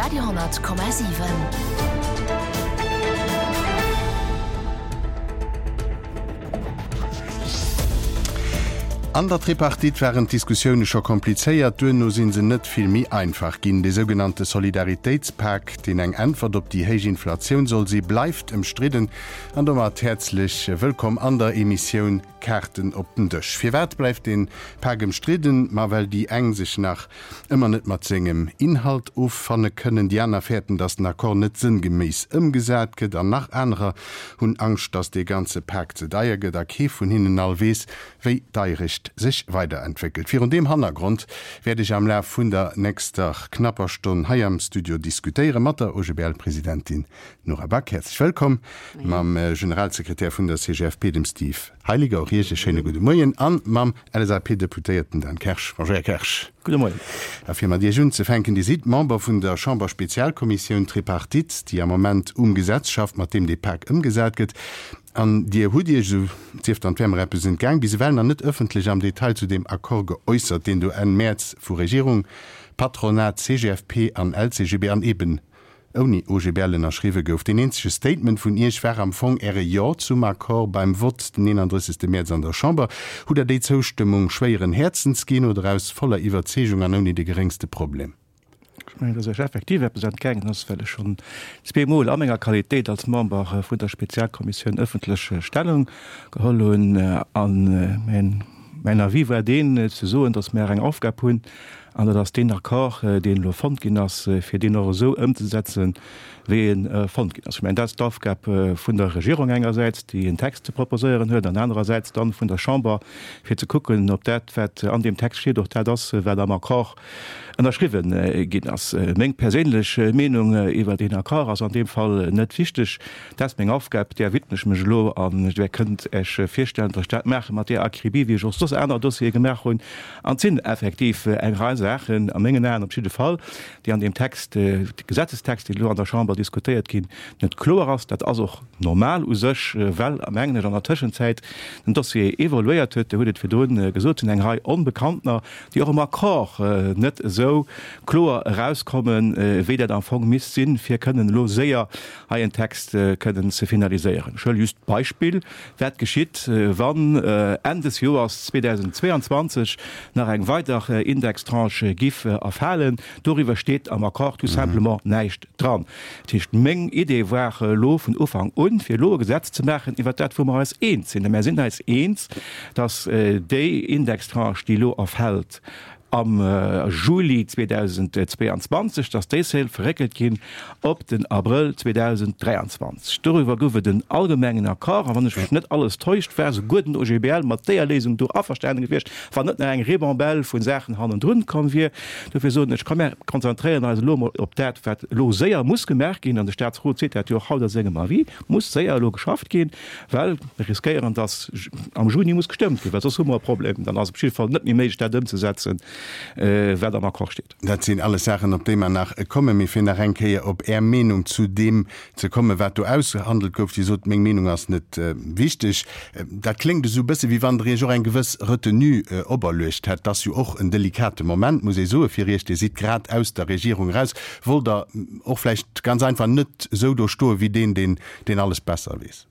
Radio,7. An der Tripartite waren d'Diskussioune scho komplizéiert, duerno si se net vill méi einfach ginn. Dee sougenannte Solidaritéitspak, deen eng Äntwert op déi héich Inflatioun soll si, bleift ëmstridden. An domat häerzlech wëllkomm an der Emissioun Kaarten op den Dësch. Firwat bleift dee Pak ëmstridden? Ma well déi eng sech nach ëmmer net mat sengem Inhalt offanne kënnen, déi aner fäerten, datt den Accord net sënngeméiss ëmgesat gëtt an nach anerer hunn Angscht, datt dee ganze Pak ze deier gëtt a kee vun hinnen all weess, wéi d'Deierecht sech weiderentwéckelt. Virun deem Hannergrond wäert ech am Laf vun der nächster knapper Stonn hei am Studio diskutéiere mat der OGBL-Presidentin Nora Back, häerzlech wëllkomm, mam Generalsekretär vun der CGFP, dem Steve Heiliger, och Iech e schéine gudde Moien, a mam LSAP-Deputéierten Dan Kersch. Bonjour, Här Kersch. Gudde Moien. A fir mat Iech unzefänken, Dir sidd Member vun der Chamberspezialkommissioun Tripartite, déi am Moment um Gesetz schafft, mat deem dee Pak ëmgesat gëtt. An Dir hutt Iech, esou sief dann, et wär mer eppes entgaang, bis ewell nach net ëffentlech am Detail zu deem Accord geäussert, deen do Enn Mäerz vu Regierung, Patronat, CGFP an LCGB an eeben ouni OGBL ënnerschriwwe gouf. Deen eenzege Statement vun Iech war am Fong Äre Jo zum Accord beim Vott den 31. Mäerz an der Chamber. Hutt Der déi Zoustëmmung schwéieren Häerzens ginn oder aus voller Iwwerzeegung an ouni de geréngste Problem? Ech mengen, dass Iech effektiv eppes entgaangen ass, well ech schonn zweemol a menger Qualitéit als Member vun der Spezialkommissioun ëffentlech Stellung geholl hunn. A mäin Avis war deen, ze soen, dass mär eng Aufgab hunn, An dat ass deen Accord, deen elo fonnt ginn ass, fir deen och esou ëmzesetzen, wéi e fonnt ginn ass. Ech mengen, dat ass d'Aufgab vun der Regierung engersäits, déi en Text ze proposéieren huet, an anerersäits dann vun der Chamber, fir ze kucken, ob dat, wat an deem Text steet, och dat ass, wat am Accord ënnerschriwwen ginn ass. Meng perséinlech Meenung iwwer deen Accord ass an deem Fall net wichteg. Dat ass meng Aufgab, där widme ech mech elo. An Dir kënnt Iech virstellen, datt ech dat maache mat där Akribie, wéi ech och soss aner Dossiere gemaach hunn. An et sinn effektiv eng Rei Saachen, a mengen Aen op jidde Fall, déi an deem Text, Gesetzestext, deen elo an der Chamber diskutéiert ginn, net kloer ass. Dat ass och normal u sech, well, mengen ech, an der Tëschenzäit den Dossier evoluéiert huet. Dir hutt et virdrun gesot, et sinn eng Rei Onbekanntener, déi och am Accord net esou kloer erauskommen, wéi dat am Fong misst sinn, fir kënnen elo séier hei en Text kënnen ze finaliséieren. Ech huele just d'Beispill, Wat geschitt, wann Enn des Joers 2022 nach eng weider Indextranche giff erfalen? Doriwwer steet am Accord tout simplement näischt dran. Dat heescht, meng Idee war elo vun Ufank un, fir elo e Gesetz ze maachen iwwert dat, wou mer eis eens sinn. A mär sinn eis eens, dass déi Indextranche, déi elo erfält, am Juli 2022, dass déi Sale verréckelt ginn op den Abrëll 2023. Doriwwer gouf et en allgemengen Accord, a wann ech mech net alles täuscht, war souguer den OGBL mat déier Léisung do averstanen gewiescht, wann net nach eng Ribambelle vu Saachen hannendrun komm wier. Dofir soen ech, komm mär konzentréieren eis elo emol op dat, wat elo séier muss gemaach ginn, an de Statsrot seet dat jo och haut a sengem Avis, muss séier elo geschafft ginn. Well mir riskéieren, dass am Juni muss gestëmmt ginn, well soss hu mer e Problem. Dann ass et op jidde Fall net méi méiglech, dat ëmzesetzen, wat am Accord steet. Dat sinn alles Saachen, op déi mer nach kommen. Mee fir nach eng Kéier op Är Meenung zu deem ze kommen, wat do ausgehandelt gouf. Dir sot, Meng Meenung ass net wichteg. Dat kléngt esou e bësse wéi wann Der Iech och eng gewëss Retenue operluecht hätt. Dat ass jo och en delikate Moment, muss ee soen, fir Iech. Dir sidd grad aus der Regierung eraus. Wollt Der och vläicht ganz einfach net esou do stoen, wéi deen, deen deen alles besser weess.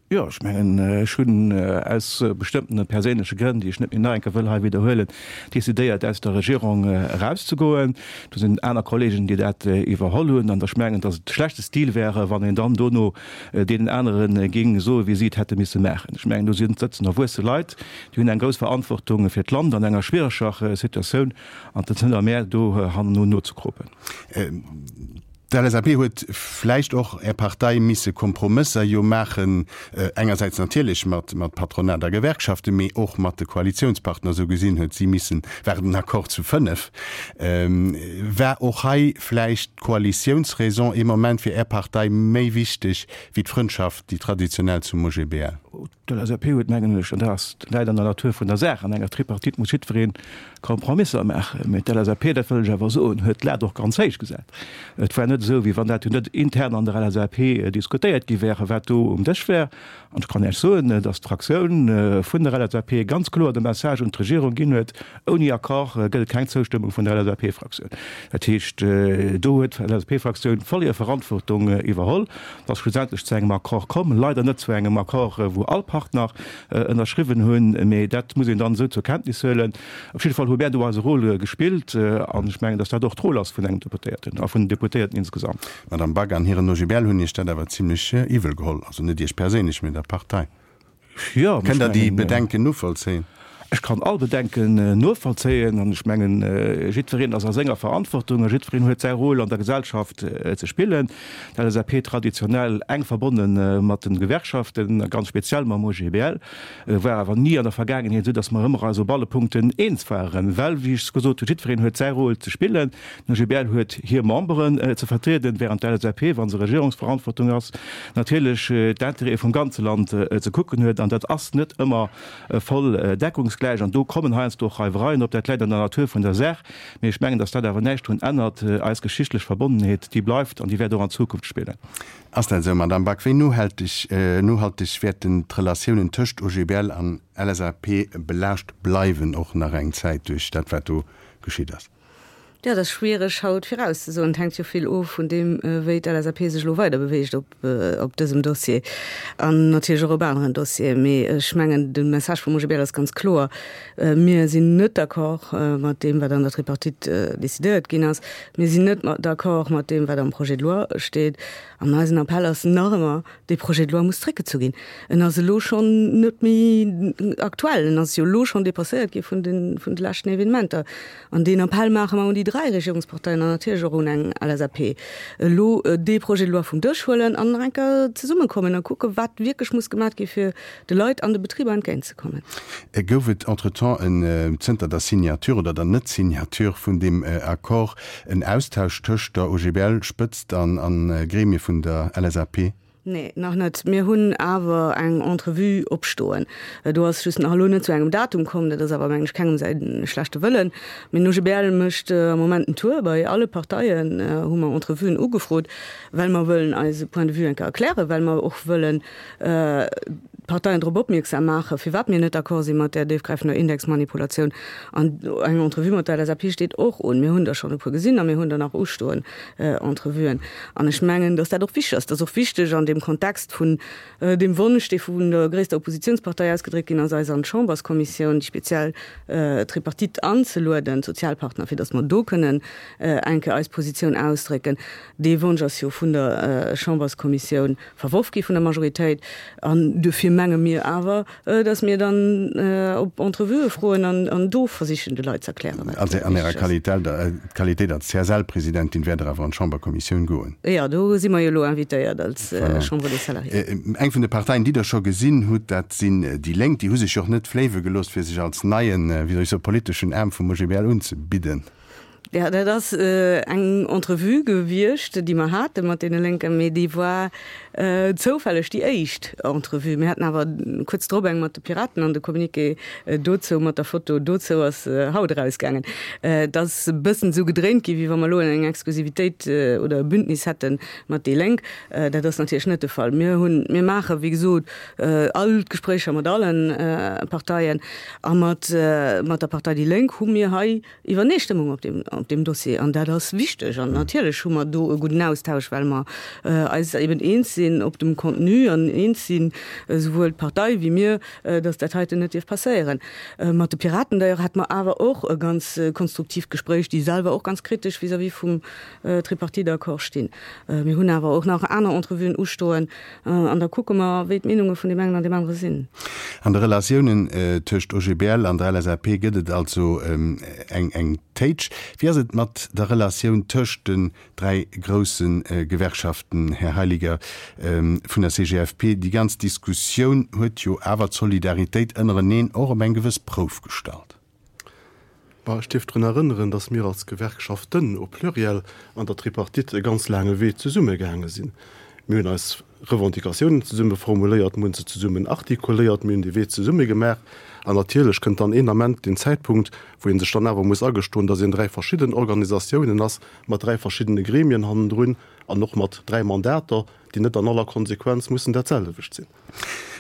Jo, ech mengen, ech hunn aus bestëmmtene perséinleche Grënn, déi ech net méi nach eng Kéier wëll hei widderhuelen, decidéiert, aus der Regierung erauszegoen. Do sinn aner Kollegen, déi dat iwwerholl hunn. An ech mengen, datt et schlechte Stil wäre, wann een dann dono deenen anere géing soen, wéi si et hätte misse maachen. Ech mengen, do sinn, sëtzen erwuesse Leit, déi hunn eng grouss Verantwortung fir d'Land an enger schwiereger Situatioun, an et ass net a mär, do hanneno nozekropen. D'LSAP huet vläicht och, Är Partei, misse Kompromësser jo maachen, engersäits natierlech mat Patronat a Gewerkschaften, mee och mat de Koalitiounspartner. Esou gesinn huet si missen, war et en Accord zu 5. War och hei vläicht d'Koalitiounsraison ee Moment fir Är Partei méi wichteg wéi d'Frëndschaft, déi traditionell zum OGBL? D'LSAP huet, mengen ech, an dat ass läit an der Natur vun der Saach, an enger Tripartite muss jiddweree Kompromisser maachen, mee d'LSAP, dat wëll ech awer soen, huet d'Lat och ganz héich gesat. Et war net esou. esou, wéi wann dat jo net intern an der LSAP diskutéiert gi wär, wat do um Dësch wär. An ech kann Iech soen, dass d'Fraktioun vun der LSAP ganz kloer de Message un d'Regierung ginn huet, Ouni Accord gëtt et keng Zoustëmmung vun der LSAP-Fraktioun. Dat heescht, do huet d'LSAP-Fraktioun voll hir Verantwortung iwwerholl. Et ass schlussendlech zu engem Accord komm, leider net zu engem Accord, wou all Partner ënnerschriwwen hunn, mee dat muss een dann esou zur Kenntnis huelen. Op jidde Fall hu mär do eise Rôle gespillt an ech mengen, dass dat och d'Rôle ass vun engem Deputéierten a vun den Deputéierten insgesamt. D'Madame Back an hiren OGBL hunn Iech dat awer zimlech iwwel geholl, also net Iech perséinlech, mee der Partei. Jo, Kënnt Der déi Bedenken novollzéien? Ech kann all Bedenken novollzéien an ech mengen, jiddwereen ass a senger Verantwortung a jiddwereen huet säi Rôle an der Gesellschaft ze spillen. D'LSAP traditionell enk verbonne mat de Gewerkschaften, ganz speziell mam OGBL, war awer ni an der Vergaangenheet esou, datt mer ëmmer eis op alle Punkten eens waren, well, wéi ech gesot hunn, jiddwereen huet säi Rôle ze spillen. Den OGBL huet hir Memberen ze vertrieden, während d'LSAP, wa se Regierungsverantwortung ass, natierlech d'Intérêtë vum ganze Land ze kucken huet. An dat ass net ëmmer voll deckungsgläich. An do kommen heiansdo och Reiwereien op. Dat läit an der Natur vun der Saach. Mee ech mengen, datt dat awer näischt drun ännert. Eis geschichtlech Verbonnenheet, déi bleift an déi wäert och an Zukunft spillen. Ass dat esou, Madamm Back? Wéi nohalteg nohalteg wäerten d'Relatiounen tëscht OGBL an LSAP belaascht bleiwen, och nach eng Zäit duerch dat, wat do geschitt ass? Jo, dat ass schwiereg haut virauszesoen. Et hänkt jo vill of vun deem, wéi d'LSAP sech elo weider beweegt op op dësem Dossier an natierlech och op aneren Dossieren. Mee ech mengen, de Message vum OGBL ass ganz kloer, Mir sinn net d'accord mat deem, wat an der Tripartite decidéiert ginn ass. Mir sinn net d'accord mat deem, wat am Projet de loi steet. An eisen Appell ass nach ëmmer, Dee Projet de loi muss zréckgezu ginn. En ass elo schonn net méi aktuell. En ass jo elo schonn dépasséiert gi vun de, vun de leschten Evenementer. An deen Appell maache mer un déi 3 Regierungsparteien an natierlech och un eng LSAP, elo dee Projet de loi vum Dësch huelen an nach eng Kéier zesummekommen a kucken, wat wierklech muss gemaat gi fir de Leit an de Betriber entgéintzekommen. Gouf et entretemps en, zënter der Signature oder der Net-Signature vun deem Accord, en Austausch tëscht der OGBL-Spëtzt an a Gremie vun der LSAP? Nee, nach net. Mir hunn awer eng Entrevue opstoen. Do ass just nach elo net zu engem Datum komm. Dat ass awer, mengen ech, kengem säi schlechte Wëllen. Mee den OGBL mécht am Moment en Tour bei alle Parteien, hu mer Entrevuen ugefrot, well mer wëllen eise Point de vue eng Kéier erklären, well mer och wëllen d'Parteien drop opmierksam maachen, firwat mir net d'accord si mat där déifgräifender Indexmanipulatioun. An eng Entrevue mat der LSAP steet och un. Mir hunn der schonn e puer gesinn a mir hunn der nach ustoen, Entrevuen. An ech mengen, datt dat och wichteg ass. Dat ass och wichteg an deem Kontext vun deem Wonsch, dee vun der gréisster Oppositionspartei ausgedréckt ginn ass, eis an d'Chamberskommissioun, déi speziell Tripartite anzelueden, d'Sozialpartner, fir datt mer do kënnen eng Kéier eis Positioun ausdrécken. Dee Wonsch ass jo vun der Chamberskommissioun verworf gi vun der Majoritéit. An duerfir menge mir awer, datt mir dann op Entrevuë froen an do versichen, de Leit ze erklären, wat wichteg ass. An Ärer Qualitéit als CSL-Presidentin wäert Der awer an d'Chamberkommissioun goen? Jo, do si mer jo elo invitéiert als Chambre des Salariés. Eng vun de Parteien, déi Der scho gesinn hutt, dat sinn déi Lénk. Déi hu sech jo och net fléiwe gelooss, fir sech als neien, wéi soll ech soen, politeschen Aarm vum OGBL unzebidden. Jo, dat ass eng Entrevue gewiescht, déi mer hate mat deene Lénken, mee déi war zoufälleg déi éischt Entrevue. Mir haten awer kuerz drop eng mat de Piraten an de Communiqué dozou mat der Foto dozou ass haut erausgaangen. Et ass e bëssen esou gedréint ginn, wéi wa mer elo eng Exklusivitéit oder e Bündnis hätte mat déi Lénk. Dat ass natierlech net de Fall. Mir hunn, mir maache wéi gesot all d'Gespréicher mat alle Parteien a mat der Partei déi Lénk hu mir hei Iwwerneestëmmung op deem, op deem Dossier. An dat ass wichteg. An natierlech hu mer do e gudden Austausch, well mer eis eben eens sinn op dem Contenu an eens sinn, esouwuel d'Partei wéi mir, dass dat heiten net dierf passéieren. Mat de Piraten d'ailleurs hate mer awer och e ganz konstruktiivt Gespréich, déi selwer och ganz kritesch vis-à-vis vum Tripartite-Accord stinn. Mir hunn awer och nach aner Entrevuen ustoen an da kucke mer, wéi d'Meenunge vun deem engen an deem anere sinn. An de Relatiounen tëscht OGBL an der LSAP gëtt et also eng Téitsch. Wéi ass et mat der Relatioun tëscht den 3 grousse Gewerkschaften, Här Heiliger vun der CGFP? Déi ganz Diskussioun huet jo awer d'Solidaritéit ënnereneen och op eng gewëss Prouf gestallt. Bon, ech dierf drun erënneren, datt mir als Gewerkschaften au pluriel an der Tripartite e ganz laange Wee zesumme gaange sinn. Mir hunn eis. Revendicatiounen zesumme formuléiert, mir hu se zesummen artikuléiert, mir hunn dee Wee zesumme gemaach. An natierlech kënnt dann een Ament deen Zäitpunkt, wou ee sech dann awer muss agestoen, dass een dräi verschidden Organisatiounen ass, mat dräi verschiddene Gremien hannendrun an och mat dräi Mandater, déi net an aller Konsequenz mussen dat selwecht sinn.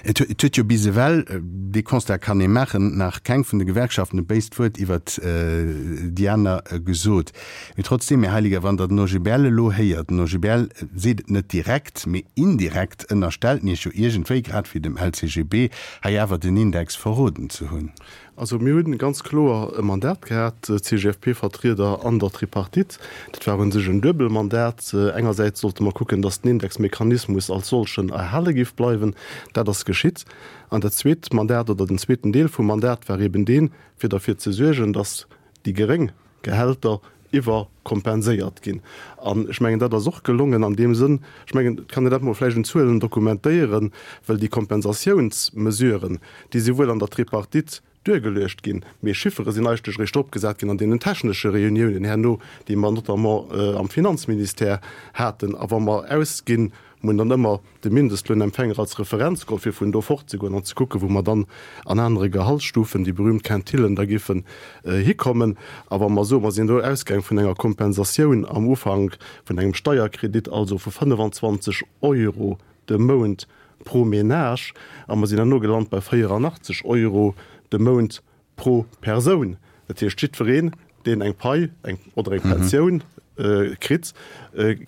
Et huet jo bis ewell, dee Constat kann ee maachen, nach keng vun de Gewerkschaften e béist Wuert iwwert déi aner gesot. Mee trotzdeem, Här Heiliger, wann Der den OGBL elo héiert, den OGBL seet et net direkt, mee indirekt ënnerstellt en Iech jo iergendwéi, grad wéi dem LCGB, hei awer den Index verroden ze hunn. Also mir hunn ganz kloer e Mandat gehat, d'CGFP-Vertrieder an der Tripartite. Dat war u sech en duebel Mandat. Engersäits sollte mer kucken, datt den Indexmechanismus als solchen erhale géif bleiwen. Dat ass geschitt. An dat zweet Mandat oder den zweeten Deel vum Mandat war eben deen, fir derfir ze suergen, datt déi geréng Gehälter iwwerkompenséiert ginn. An ech mengen, dat ass och gelongen an deem Sënn, ech mengen, et kann een dat mol vläicht un Zuelen dokumentéieren, well déi Kompensatiounsmesuren, déi si wuel an der Tripartite duergeluecht ginn, mee Chiffere sinn eigentlech eréischt opgesat ginn an deenen technesche Reuniounen herno, déi mer notamment am Finanzministère haten. A wa mer ausginn, Mir hunn dann ëmmer de Mindestlounempfänger als Referenz geholl, fir vun do fortzegoen an ze kucken, wou mer dann an anere Gehaltsstufen, déi berühmt Quintillen, da géifen hikommen. A wa mer soen, mer sinn do ausgaang vun enger Kompensatioun am Ufank vun engem Steierkredit, also vu 25 Euro de Mount pro Ménage, a mer sinn herno gelant bei 84 Euro de Mount Pro Persoun, dat heescht jiddwereen, deen eng Pai eng oder eng Pensioun kritt,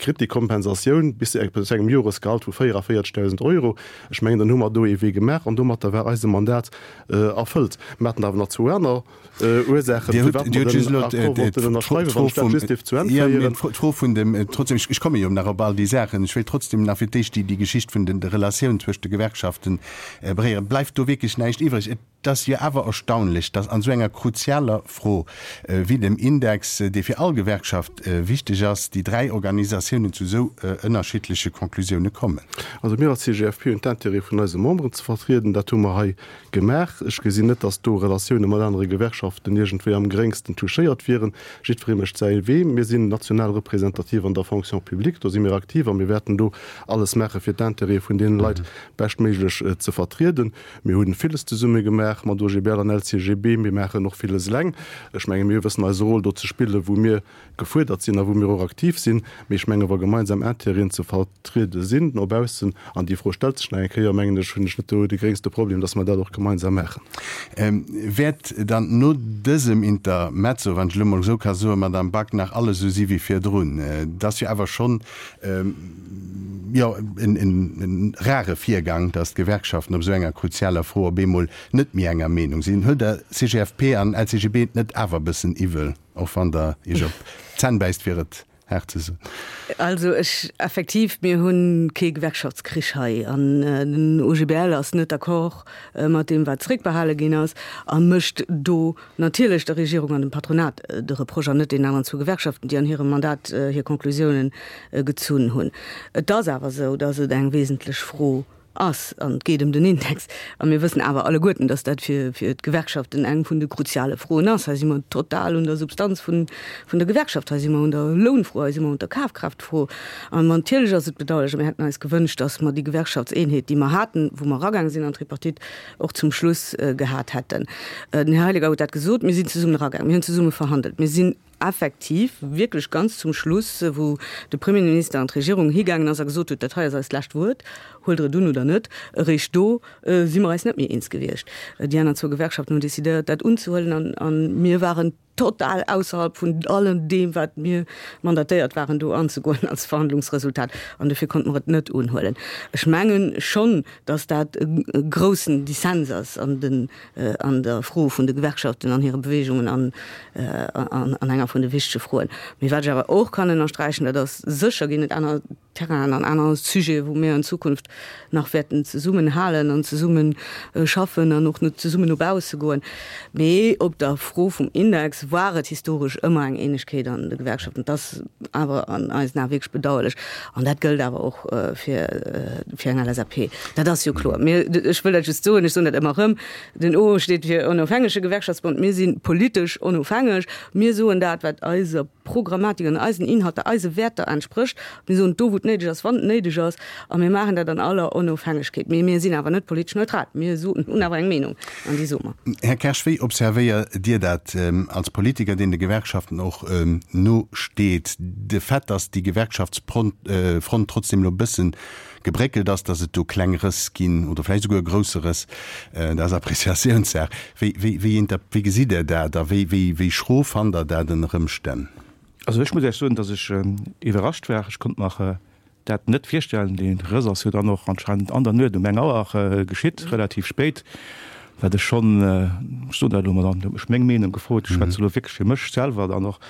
kritt déi Kompensatioun bis zu engem Joresgehalt vu 44.000 Euro. Ech mengen, dann hu mer do ee Wee gemaach an domatter war eise Mandat erfëllt. Mer haten awer nach zwou aner Ursaachen, firwat mer den Accord wollten ënnerschreiwen, wann ech dat just dierf zu Enn féieren. D'Fro vun dem, trotzdem, ech komme jo nach op all déi Saachen, ech wéilt trotzdem nach fir d'éischt déi Geschicht vun de Relatioun zwëscht de Gewerkschaften beréieren. Bleift do wierklech näischt iwwreg? Et ass jo awer erstaunlech, datt an esou enger kruzialer Fro wéi dem Index, dee fir all Gewerkschaft wichteg ass, déi 3 Organisatiounen zu esou ënnerschiddleche Conclusioune kommen. Also mir als CGFP hunn d'Intérêt vun eise Memberen ze vertrieden. Dat hu mer hei gemaach. Ech gesinn net, datt do Relatioune mat anere Gewerkschaften iergendwéi am geréngsten touchéiert wieren. Jiddweree mécht säi Wee. Mir sinn national representativ an der Fonction publique, do si mir aktiv a mir wäerten do alles maache fir d'Intérêtë vun deene Leit beschtméiglech ze vertrieden. Mir hu villes zesumme gemaach mat OGBL an LCGB. Mir maachen och villes eleng. Ech menge mir wëssen eise Rôle do ze spillen, wou mir gefuerdert sinn a wou mir och aktiv sinn. Mee ech menge wa gemeinsam Intérêten ze vertriede sinn no baussen, an déi Fro stellt sech nach eng Kéier, mengen ech, hunn ech net do de gréngste Problem, datt mer dat och gemeinsam maachen. Wäert dann no dësem Intermezzo, wann ech elo mol esou ka soen, Madame Back, nach alles esou si wéi virdrun? Et ass jo awer schonn jo en rare Virgang, datt d'Gewerkschaften op esou enger kruzialer Fro op eemol net méi enger Meenung sinn. Huelt Der CGFP an LCGB et net awer e bëssen iwwel, och wann Der Iech op d'Zänn bäisst, fir et haart ze soen? Also ech, effektiv, mir hu kee Gewerkschaftskrich hei an den OGBL ass net d'accord mat deem, wat zréckbehale ginn ass a mécht do Natierlech der Regierung an dem Patronat de Reproche an net deenen aneren zwou Gewerkschaften, déi an hirem Mandat hir Conclusiounen gezunn hunn. Et ass awer esou, datt et eng wesentlech Fro ass an et geet ëm den Index. A mir wëssen awer alleguerten, datt dat fir d'Gewerkschaften eng vun de kruziale Froen ass. Hei si mer total un der Substanz vun der Gewerkschaft, hei si mer un der Lounfro, hei si mer un der Kafkraaftfro. An natierlech ass et bedauerlech a mir hätten eis gewënscht, datt mer déi Gewerkschaftseenheet, déi mer haten, wou mer eragaange sinn an d'Tripartite, och zum Schluss gehat hätten. Den Här Heiliger huet dat gesot, Mir sinn zesummen eragaangen, mir hunn zesumme verhandelt, mir sinn effektiv wierklech ganz zum Schluss, wou de Premierminister an d'Regierung higaangen ass a gesot huet, dat hei ass eist lescht Wuert, huelt Der et un oder net, eréischt do si mer eis net méi eens gewiescht. Déi aner zwou Gewerkschaften hunn decidéiert, dat unzehuelen an mir waren total ausserhalb vun allem deem, wat mir mandatéiert waren, do anzegoen als Verhandlungsresultat. An dofir konnte mer et net unhuelen. Ech menge schonn, datt dat e groussen Dissens ass an den, an der Fro vun de Gewerkschaften an hire Bewegungen an, an enger vun de wichtege Froen. Mee wat ech awer och kann ënnersträichen, dat ass, sécher ginn et aner Terrainen an aner Sujete wou mir an Zukunft nach wäerten zesummen halen an zesumme schaffen an och zesummen no bausse goen. Mee op der Fro vum Index war et historesch ëmmer eng Eenegkeet an de Gewerkschaften. Dat ass awer an eisen Ae wierklech bedauerlech an dat gëllt awer och fir fir eng LSAP. Dat ass jo kloer. Mir, ech wëll dat just soen, ech soen dat ëmmer erëm, den O steet fir onofhängege Gewerkschaftsbond. Mir si politesch onofhängeg. Mir soen dat, wat eiser. Programmatik an eisen Inhalter, eise Wäerter entsprécht. Mir soen do, wou et néideg ass, wann et néideg ass, a mir maachen dat an aller Onofhängegkeet. Mee mir sinn awer net politesch neutral. Mir soen, hunn awer eng Meenung an déi soe mer. Här Kersch, wéi observéiert Dir dat als Politiker, deen de Gewerkschaften och no steet, de Fait, datt déi Gewerkschaftsfront trotzdem elo e bëssen gebréckelt ass, datt et do kleng Rëss ginn oder vläicht esouguer e grousse Rëss, dat ass Appreciatiounssaach. Wéi, wéi, wéi inter, wéi gesitt Der dat a wéi, wéi, wéi schro fannt Der dat ënner Ëmstänn? Also ech muss Iech soen, datt ech iwwerrascht war. Ech konnt mer dat net virstellen. Dee Rëss ass jo dann och anscheinend an der Nuet um eng Auer geschitt, relativ spéit, wat ech schonn, ech soen dat elo mol, an huet mech meng Meenung gefrot, ech schwätze elo wierklech fir mech selwer, dann och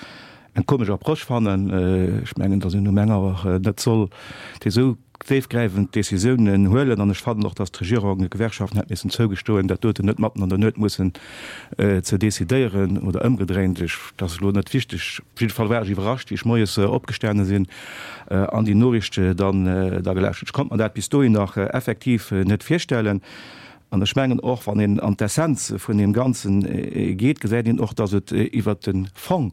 eng komesch Approche fannen. Ech mengen, datt een um eng Auer net soll déi esou déifgräifend Décisiounen huelen. An ech fannen och, datt d'Regierung de Gewerkschaften hätt missen zougestoen, dat doten net matten an der Nuet mussen ze décidéieren oder ëmgedréint. Ech, dat ass elo net wichteg. Op jidde Fall war ech iwwerrascht, wéi ech moies opgestane sinn an déi Noriicht dann da gelauschtert. Ech konnt mer dat bis dohin nach effektiv net virstellen. An ech mengen och, wann een an d'Essenz vun deem Ganzen geet, gesäit een och, datt et iwwert de Fong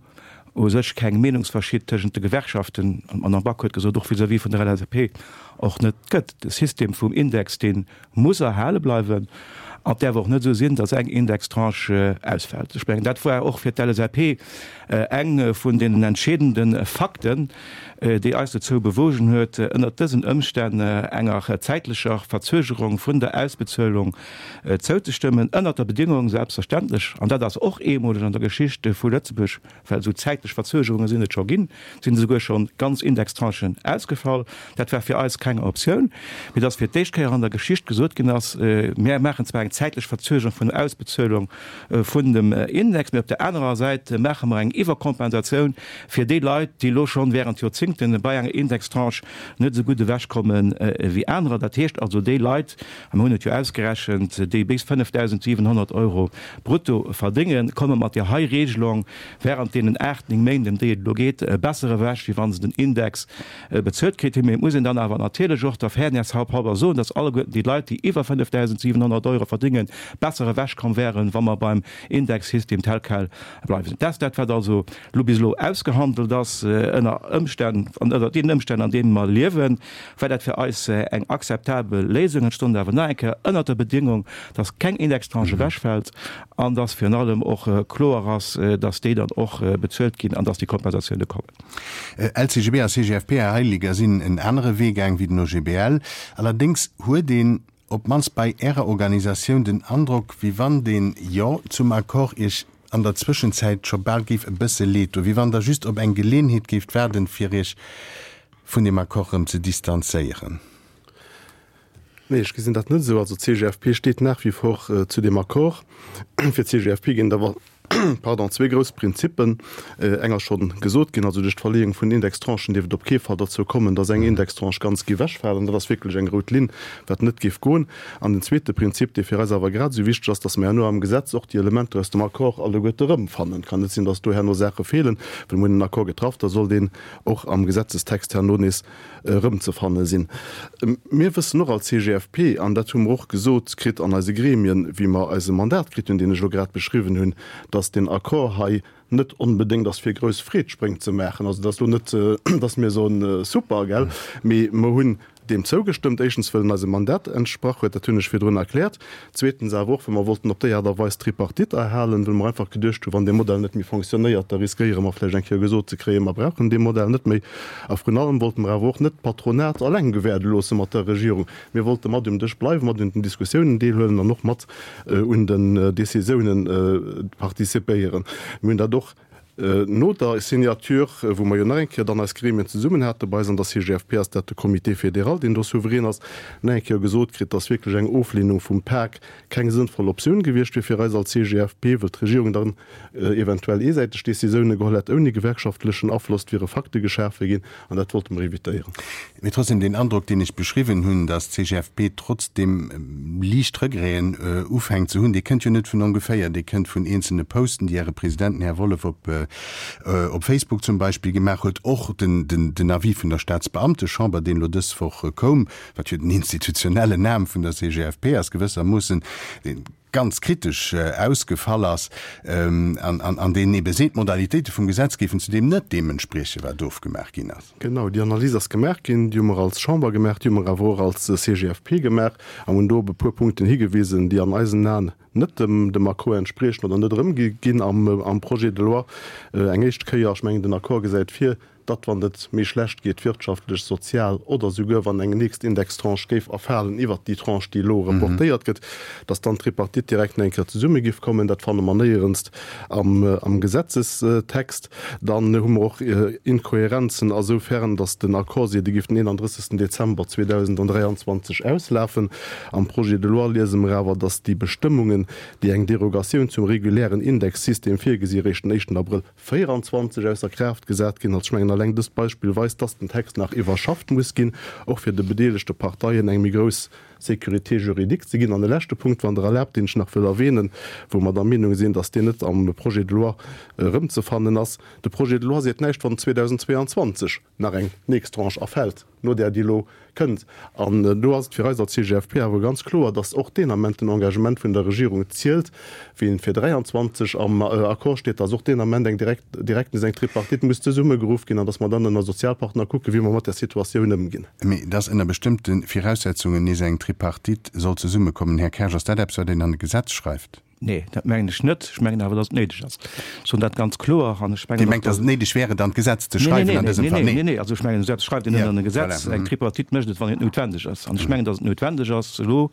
u sech keng Meenungsverschied tëschent de Gewerkschaften, an d'Madame Back huet gesot, och vis-à-vis vun der LSAP, och net gëtt. De System vum Index, dee muss erhale bleiwen. An et däerf och net esou sinn, datt eng Indextranche ausfält. Ech mengen, dat war och fir d'LSAP eng vun deenen entscheedende Fakten, déi eis dozou bewogen huet, ënnert dësen Ëmstänn enger zäitlecher Verzögerung vun der Ausbezuelung zouzestëmmen, ënnert der Bedingung selbstverständlech, an dat ass och eemoleg an der Geschicht vu Lëtzebuerg, well esou zäitlech Verzögerunge sinn et scho ginn, sinn esouguer scho ganz Indextranchen ausgefall. Dat war fir eis keng Optioun, mee dass fir d'éischt Kéier an der Geschicht gesot ginn ass, Mir maachen zwar eng zäitlech Verzögerung vun der Ausbezuelung vun dem Index, mee op der anerer Säit maache mer eng Iwwerkompensatioun fir déi Leit, déi elo schonn während Joerzingten bei enger Indextranche net esou gutt ewechkomme wéi anerer. Dat heescht also déi Leit, a mir hunn et jo ausgerechent, déi bis 5.700 Euro brutto verdéngen, komme mat där hei Regelung während deenen 8, 9 Méint, ëm déi et elo geet, besser ewech, wéi wa se den Index bezuelt kritt hunn. Mee et muss een dann awer natierlech och der Fairness halber soen, dass alleguerten déi Leit, déi iwwer 5.700 Euro verdéngen, besser ewechkomm wären, wa mer beim Indexsystem tel quel bleiwen. Dat ass dat, wat also elo bis elo ausgehandelt ass ënner Ëmstänn, ënner deenen Ëmstänn, an deene mer liewen. War dat fir eis eng akzeptabel Léisung. Et stond awer nach eng Kéier ënnert der Bedingung, dass keng Indextranche ewechfält an dass virun allem och kloer ass, dass déi dann och bezuelt ginn an dass déi Kompensatioune kommen. LCGB a CGFP, Här Heiliger, sinn en anere Wee gaang wéi den OGBL. Allerdéngs huet een op d'mannst bei Ärer Organisatioun den Androck, wéi wann deen Jo zum Accord Iech an der Zwëschenzäit scho bal géif e bësse leed doen, wéi wann Der just op eng Geleenheet géift waarden, fir Iech vun deem Accord erëm ze distanzéieren? Nee, ech gesinn dat net esou. Also d'CGFP steet nach wie vor zu deem Accord. Fir d'CGFP ginn et awer, pardon, zwee grouss Prinzippen. Eng ass schonn gesot ginn, also duerch d'Verleeung vun den Indextranchen dierf et op kee Fall derzou kommen, datt eng Indextranche ganz géif ewechfalen. Dat ass wierklech eng rout Linn, wat net géif goen. An den zweete Prinzip, dee fir eis awer grad esou wichteg ass, datt mer herno am Gesetz och déi Elementer aus dem Accord alleguerte erëmfannen. Et kann net sinn, datt do herno Saache feelen, well mir hunn en Accord getraff, da soll deen och am Gesetzestext herno nees erëmzefanne sinn. Mir wëssen och als CGFP, an dat hu mer och gesot kritt an eise Gremien, wéi mer eise Mandat kritt hunn, deen ech elo grad beschriwwen hunn, dass deen Accord hei net onbedéngt ass fir grouss Freedspréng ze maachen. Also et ass elo net, dass mir soen, super, gell, mee mer hunn deem zougestëmmt, éischtens wëll en eisem Mandat entsprach huet, dat hunn ech virdrun erkläert, zweetens awer och, well mer wollten op déi Aart a Weis d'Tripartite erhalen, well mer einfach geduecht hunn, wann dee Modell net méi fonctionnéiert, da riskéiere mer vläicht eng Kéier gesot ze kréien, mer brauchen dee Modell net méi. A vrun allem wollte mer awer och net d'Patronat alleng gewäerde loosse mat der Regierung. Mir wollte mat um Dësch bleiwen, mat un den Diskussiounen deelhuelen an och mat un den Décisiounen participéieren. Mir hunn dat och No der Signature, wou mer jo nach eng Kéier dann eis Gremien zesummen hate bei eis an der CGFP, ass dat de Comité fédéral, deen do souverän ass, nach eng Kéier gesot kritt, dass wierklech eng Oflehnung vum Pak keng sënnvoll Optioun gewiescht wier fir eis als CGFP, wëll d'Regierung dann eventuell eesäiteg Décisioune geholl hätt ouni gewerkschaftlechen Afloss, et wiere Fakte geschafe ginn an dat wollte mer evitéieren. Mee trotzdem, deen Androck, deen ech beschriwwen hunn, datt d'CGFP trotzdem liicht Regreten ufänkt ze hunn, dee kënnt jo net vun ongeféier, dee kënnt vun eenzelne Posten, déi Äre President, den Här Wollef, op op Facebook zum Beispill gemaach huet. Och den den Avis vun der Staatsbeamtechamber, deen elo dës Woch koum, wat jo den institutionellen Aarm vun der CGFP ass gewëssermoossen, dee. ganz kritesch ausgefall ass an deen ebe seet, d'Modalitéite vum Gesetz géifen zudeem net deem entspriechen, wat ofgemaach ginn ass. Genau, déi Analys ass gemaach ginn, déi hu mer als Chamber gemaach, déi hu mer awer och als CGFP gemaach an hunn do op e puer Punkten higewisen, déi an eisen Aen net dem Accord entspriechen oder net erëmgi ginn am Projet de loi. Eng éischt Kéier, ech mengen, den Accord gesäit vir, datt wann et méi schlecht geet, wirtschaftlech, sozial oder souguer wann eng nächst Indextranche géif erfalen iwwert déi Tranche, déi elo reportéiert gëtt, datt dann d'Tripartite direkt nach eng Kéier zesumme giff kommen. Dat fanne mer néierens am Gesetzestext. Dann hu mer och Inkohärenzen asoufern, datt den Accord seet, e giff den 31. Dezember 2023 auslafen. Am Projet de loi liese mer awer, datt déi Bestëmmungen, déi eng Derogatioun zum regulären Indexsystem virgesi, eréischt den éischten Abrëll 24 ausser Kraaft gesat ginn. Also ech mengen, alleng dëst Beispill weist, dass den Text nach iwwerschafft muss ginn, och fir de bedeelegte Parteien eng méi grouss Sécurité juridique ze ginn. An e leschte Punkt, wann Der erlaabt, deen ech nach wëll erwähnen, wou mer der Meenung sinn, dass deen net am Projet de loi erëmzefannen ass, De Projet de loi seet näischt, wann 2022 nach eng nächst Tranche erfält, no där, déi elo kënnt. An do ass et fir eis als CGFP awer ganz kloer, dass och deen Ament den Engagement vun der Regierung zielt, wéi en fir 23 am Accord steet, dass och deen Ament eng direkt, direkt nees eng Tripartite muss zesummegeruff ginn an dass mer dann ënner Sozialpartner kucken, wéi mer mat där Situatioun ëmginn. Mee dass ënner bestëmmte Viraussetzungen nees eng Tripartite soll zesummekommen, Här Kersch, ass dat eppes, wat een an e Gesetz schreift? Nee, dat mengen ech net. Ech mengen awer, dass et néideg ass. Ech soen dat ganz kloer. An ech mengen Dir mengt, dass et néideg wär, et an d'Gesetz ze schreiwen an dësem Fall? Nee, nee, nee. Also ech mengen, esou eppes schreift een net an e Gesetz. Eng Tripartite mécht et, wann et noutwendeg ass. An ech mengen, dass et noutwendeg ass, elo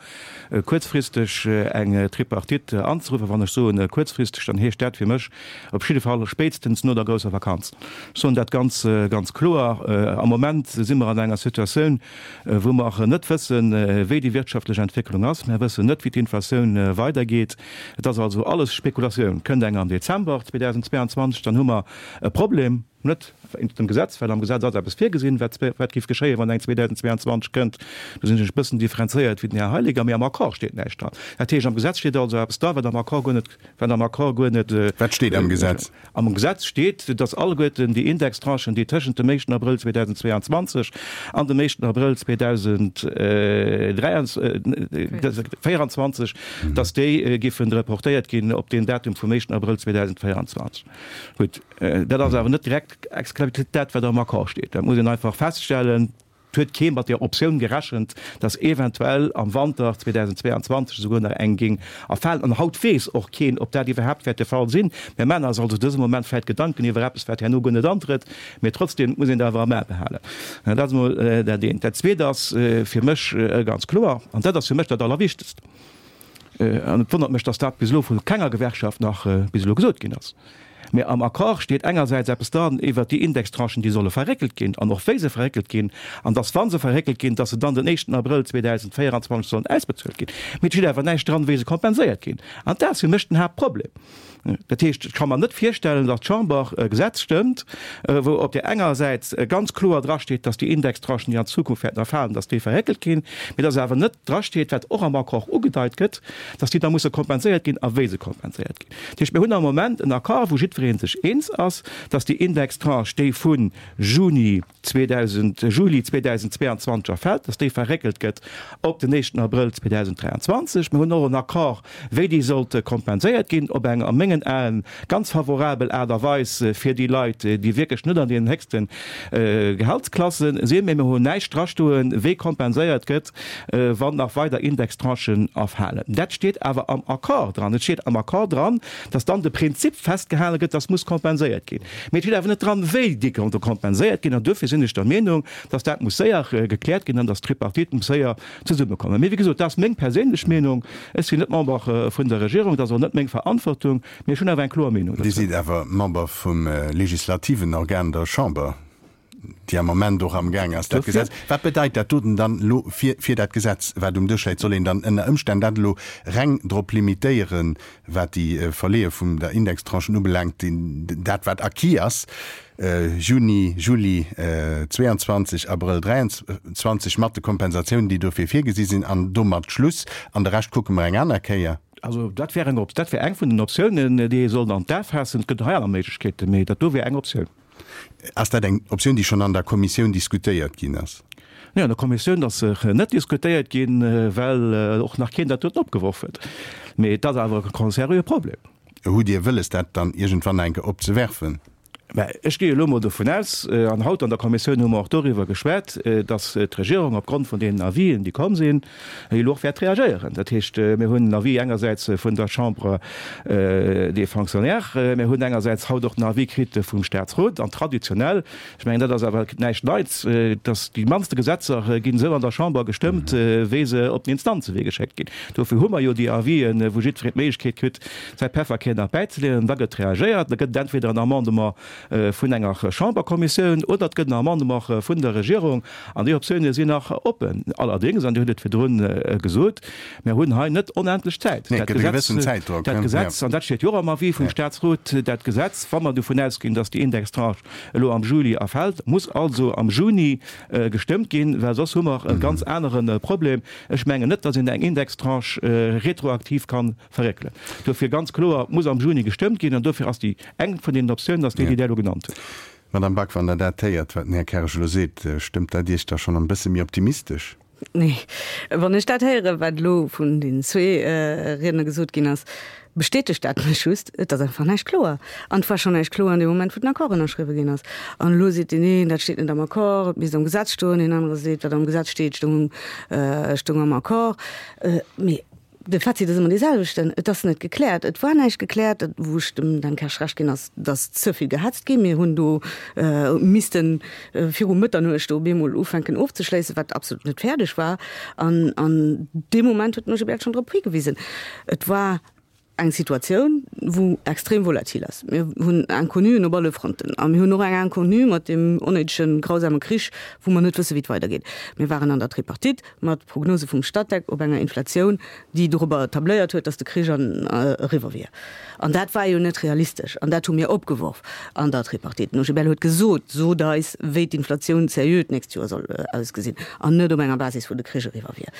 kuerzfristeg eng Tripartite anzeruffen. Wann ech soen kuerzfristeg, dann heescht dat fir mech op jidde Fall spéitstens no der grousser Vakanz. Ech soen dat ganz, ganz kloer. Am Moment si mer an enger Situatioun, wou mer net wëssen, wéi déi wirtschaftlech Entwécklung ass. Mer wëssen net, wéi d'Inflatioun weidergeet. Et ass also alles Spekulatioun. Kënnt eng am Dezember 2022, dann hu mer e Problem, net wéinst dem Gesetz, well am Gesetz ass eppes virgesinn, wat wat géif geschéien, wann eng 2022 kënnt. Do sinn ech e bëssen differenzéiert wéi den Här Heiliger, mee am Accord steet näischt dran. Dat heescht, am Gesetz steet also eppes dra, wat am Accord guer net Wat am Accord guer net. Wat steet am Gesetz? Am Gesetz steet, datt alleguerten déi Indextranchen, déi tëschent dem éischten Abrëll 2022 an dem éischten Abrëll 2024, datt déi giffen reportéiert ginn op deen Datum vum éischten Abrëll 2024. Gutt, dat ass awer net direkt explizit dat, wat am Accord steet. Dat muss een einfach feststellen. Et huet kee mat der Optioun gerechent, dass eventuell am Wanter 2022 esouguer nach eng géing erfalen. An haut weess och keen, ob dat iwwerhaapt wäert de Fall sinn. Mir maachen eis also dëse Moment vläicht Gedanken iwwer eppes, wat herno guer net antrëtt, mee trotzdem muss een dat awer am A behalen. Dat ass emol dat eent. Dat Zweet ass fir mech ganz kloer, an dat ass fir mech dat Allerwichtegst, An et wonnert mech, dass dat bis elo vu kenger Gewerkschaft nach bis elo gesot ginn ass. Mä am Accord steet engersäits eppes dran iwwert déi Indextranchen, déi solle verréckelt ginn an och wéi se verréckelt ginn, an dass, wa se verréckelt ginn, dass se dann den éischten Abrëll 2024 sollen ausbezuelt ginn. Mee et steet awer näischt dran, wéi se kompenséiert ginn. An dat ass fir mech den Haaptproblem. Dat heescht, ech ka mer net virstellen, datt d'Chamber e Gesetz stëmmt, wou op där enger Säit ganz kloer drasteet, datt déi Indextranchen, déi an Zukunft wäerten erfalen, datt déi verréckelt ginn, mee datt awer net drasteet, wat och am Accord ugedeit gëtt, datt déi da musse kompenséiert ginn a wéi se kompenséiert ginn. Dat heescht, mir hunn am Moment en Accord, wou jiddweree sech eens ass, datt déi Indextranche, déi vu Juni 2000, Juli 2022 erfält, datt déi verréckelt gëtt op den éischten Abrëll 2023. Mir hunn och en Accord, wéi déi sollt kompenséiert ginn, op eng a mengen Aen ganz favorabel Aart a Weis fir déi Leit, déi wierklech net an deenen héchste Gehaltsklasse sinn. Mee mir hunn näischt drastoen, wéi kompenséiert gëtt, wann nach weider Indextranchen erfalen. Dat steet awer am Accord dran. Et steet am Accord dran, datt dann de Prinzip festgehale gëtt, datt muss kompenséiert ginn. Mee et steet awer net dran, wéi déi konnte kompenséiert ginn. An duerfir sinn ech der Meenung, dass dat muss séier gekläert ginn an dass d'Tripartite muss séier zesummekommen. Mee wéi gesot, dat ass meng perséinlech Meenung. Ech sinn net Member vun der Regierung, dat ass och net meng Verantwortung, mee ech hunn awer eng kloer Meenung Dir dozou. sidd awer Member vum legislativen Organ, der Chamber, déi am Moment och amgaang ass, dat Gesetz. Wat bedeit dat doten dann elo fir, fir dat Gesetz, wat um Dësch läit? Soll een dann ënner Ëmstänn dat elo reng drop limitéieren, Wat déi Verleeë vum der Indextranchen ubelaangt, dat wat acquis ass, Juni, Juli 22, Abrëll 23, mat de Kompensatiounen, déi dofir virgesi sinn, an domat Schluss, an de Rescht kucke mer eng aner Kéier. Also dat wär eng, dat wär eng vun den Optiounen, déi ee sollt an d'A faassen. Et gëtt hei aner Méiglechkeeten, mee dat do wär eng Optioun. Ass dat eng Optioun, déi schonn an der Kommissioun diskutéiert ginn ass? Nee, an der Kommissioun ass se net diskutéiert ginn, well och nach keen dat doten opgeworf huet. Mee et ass awer e sérieux Problem. Hutt Dir wëlles, dat dann iergendwann eng Kéier opzewerfen? Mä ech gi elo mol dovun aus, an haut an der Kommissioun hu mer och doriwwer geschwat, datt d'Regierung opgrond vun deenen Avisen, déi komm sinn, elo och wäert reagéieren. Dat heescht, mir hunn en Avis engersäits vun der Chambre des Fonctionnaires, mir hunn engersäits haut och den Avis kritt vum Statsrot. An traditionell, ech mengen, dat ass awer näischt Neits, datt déi mannste Gesetzer ginn esou an der Chamber gestëmmt, wéi se op den Instanzewee geschéckt ginn. Dofir hu mer jo déi Avisen, wou jiddwereen d'Méiglechkeet kritt, säi Pefferkär nach bäizeleeën. An da gëtt reagéiert. Da gëtt et entweder en Amendement vun enger Chamberkommissioun oder et gëtt en Amendement vun der Regierung. An déi Optioune sinn nach oppen. Allerdéngs, an Dir hutt et virdrun gesot, mir hunn hei net onendlech Zäit. Nee, et gëtt e gewëssen Zäitdrock. Dat Gesetz, an dat steet jo och am Avis vum Statsrot, dat Gesetz, wa mer dovun ausginn, datt déi Indextranche elo am Juli erfält, muss also am Juni gestëmmt ginn, well soss hu mer e ganz anere Problem. Ech mengen net, datt een eng Indextranche retroaktiv ka verréckelen. Dofir ganz kloer, et muss am Juni gestëmmt ginn an dofir ass déi eng vun deenen Optiounen ass déi, déi Der elo genannt hutt. Madame Back, wann Der dat héiert, wat den Här Kersch elo seet, stëmmt dat Iech da schonn en bësse méi optimistesch? Nee. Wann ech dat héieren, wat elo vun den zwee Riedner gesot ginn ass, bestätegt dat mech just, et ass einfach näischt kloer. An et war schonn näischt kloer an deem Moment, wou den Accord ënnerschriwwe ginn ass. An elo seet deen een, dat steet net am Accord, et misst am Gesetz stoen. Deen anere seet, wat am Gesetz steet, stoung am Accord. Mee De Fazit ass ëmmer dee selwechten, Et ass net gekläert. Et war näischt gekläert. Wou ech dem Dan Kersch Recht ginn, ass, datt ze vill gehetzt ginn. Mir hunn do misste viru Mëtternuecht do op eemol ufänken ofzeschléissen, wat absolut net fäerdeg war. An an deem Moment huet den OGBL schonn drop higewisen. Et war eng Situatioun, wou extrem volatil ass. Mir hunn Inconnuen op alle Fronten. A mir hunn och eng Inconnue mat deem onnéidegen, grausame Krich, wou mer net wësse wéi et weidergeet. Mir waren an der Tripartite. mat Prognose vum Statec op enger Inflatioun, déi dorobber tabléiert huet, datt de Krich an eriwwer wier. An dat war jo net realistesch. An dat hu mir opgeworf an der Tripartite. Den OGBL huet gesot, Sot eis, wéi d'Inflatioun seriö d'nächst Joer soll ausgesinn, an net op enger Basis, wou de Krich eriwwer wier.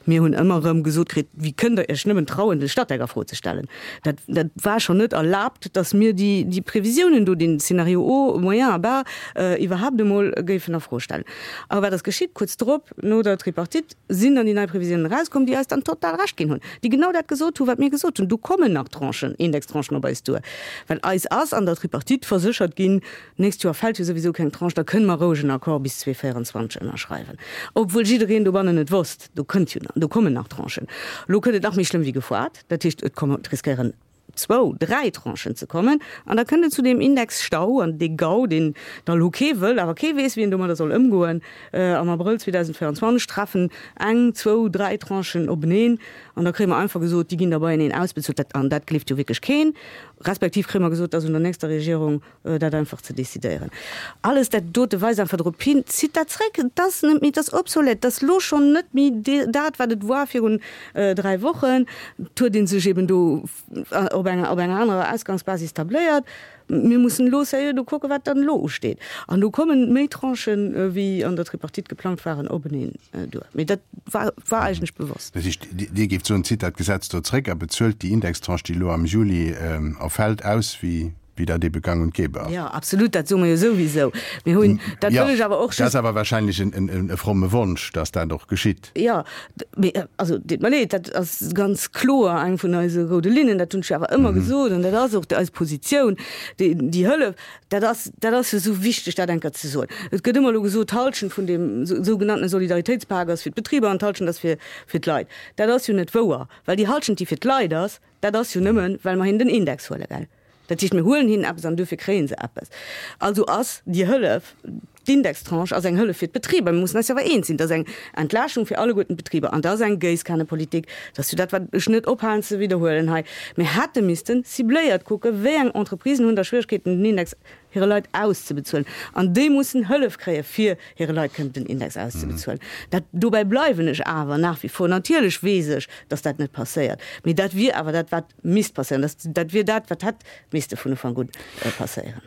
Mir hunn ëmmer erëm gesot kritt, Wéi kënnt Der Iech nëmmen trauen, de Statec a Fro ze stellen? Dat, dat war schonn net erlaabt, datt mir déi, déi Previsiounen do, deen Scénario haut, moyen a bas, iwwerhaapt emol géifen a Fro stellen. A wat ass geschitt? Kuerz drop, no der Tripartite, sinn dann déi nei Previsiounen erauskomm, déi eis dann total Recht ginn hunn, déi genau dat gesot hunn, wat mir gesot hunn, Do kommen nach Tranchen, Indextranchen op eis duer. Well eis ass an der Tripartite verséchert ginn, D'nächst Joer fält jo souwisou keng Tranche, da kënne mer roueg en Accord bis 2024 ënnerschreiwen. Obwuel jiddereen dobannen et wosst, do kënnt jo, do kommen nach Tranchen. Elo kënnt et nach méi schlëmm wéi gefoart, dat heescht, et komme, et riskéieren zwou, dräi Tranchen ze kommen an da kënnt et zu deem Indexstau an dee Gau, deen da lo kee wëll, awer kee weess, wéi en domadder soll ëmgoen. Am Abrëll 2024 treffen eng, zwou, dräi Tranchen openeen an da kréie mer einfach gesot, déi ginn da beieneen ausbezuelt. Dat, an dat gleeft jo wierklech keen. Respektiv kréie mer gesot, et ass un der nächster Regierung, dat einfach ze decidéieren. Alles dat dote weist einfach drop hin, zitt dat zréck, et ass net méi, et ass obsolète, et ass elo schonn net méi dat, wat et war virun 3 Wochen. Et huet ee sech eben do op enger, op enger anerer Ausgangsbasis tabléiert. Mir mussen elo sérieux do kucken, wat dann elo usteet. An do kommen méi Tranchen, wéi an der Tripartite geplangt waren, openeen duer. Mee dat war, war eigentlech bewosst. Dat heescht, Dir géift soen, zitt dat Gesetz do zréck a bezuelt déi Indextranche, déi elo am Juli erfält, aus, wéi wéi dat ebe gang und gäbe ass. Jo, absolut, dat soe mer jo souwisou. Mir hunn, dat wëll ech awer och just. Dat ass awer wahrscheinlech e fromme Wonsch, dass dat och geschitt. Jo, mee also, deet mer leed, dat ass ganz kloer eng vun eise roude Linnen, dat hunn ech jo awer ëmmer gesot an dat ass och eis Positioun. Déi, déi Hëllef, dat ass, dat ass jo esou wichteg, dat eng Kéier ze soen. Et gëtt ëmmer elo gesot, d'Halschent vun deem sougenanntene Solidaritéitspak ass fir d'Betriber an d'Halschent ass fir, fir d'Leit. Dat ass jo net wouer, well déi Halschent, déi fir d'Leit ass, Dat ass jo nëmmen, well mer hinnen den Index huelen, gell? Dat heescht, mir huelen hinnen eppes an duerfir kréie se eppes. Also ass déi Hëllef, d'Indextranche ass eng Hëllef fir d'Betriber. Mir mussen eis jo awer eens sinn, dat ass eng Entlaaschtung fir alleguerten d'Betriber an dat ass eng Géisskanepolitik. Dat ass jo dat, wat ech net ophalen ze widderhuelen hei. Mir hätte misste cibléiert kucken, wéi eng Entreprisen hunn da Schwieregkeeten, den Index hire Leit auszebezuelen. An déi mussen Hëllef kréie fir hire Leit kënnen den Index auszebezuelen. Dat, dobäi bleiwen ech awer nach wie vor. Natierlech weess ech, datt dat net passéiert, mee dat wier awer dat, wat misst passéieren. Dat, dat wier dat, wat hätt misste vun Ufank un passéieren.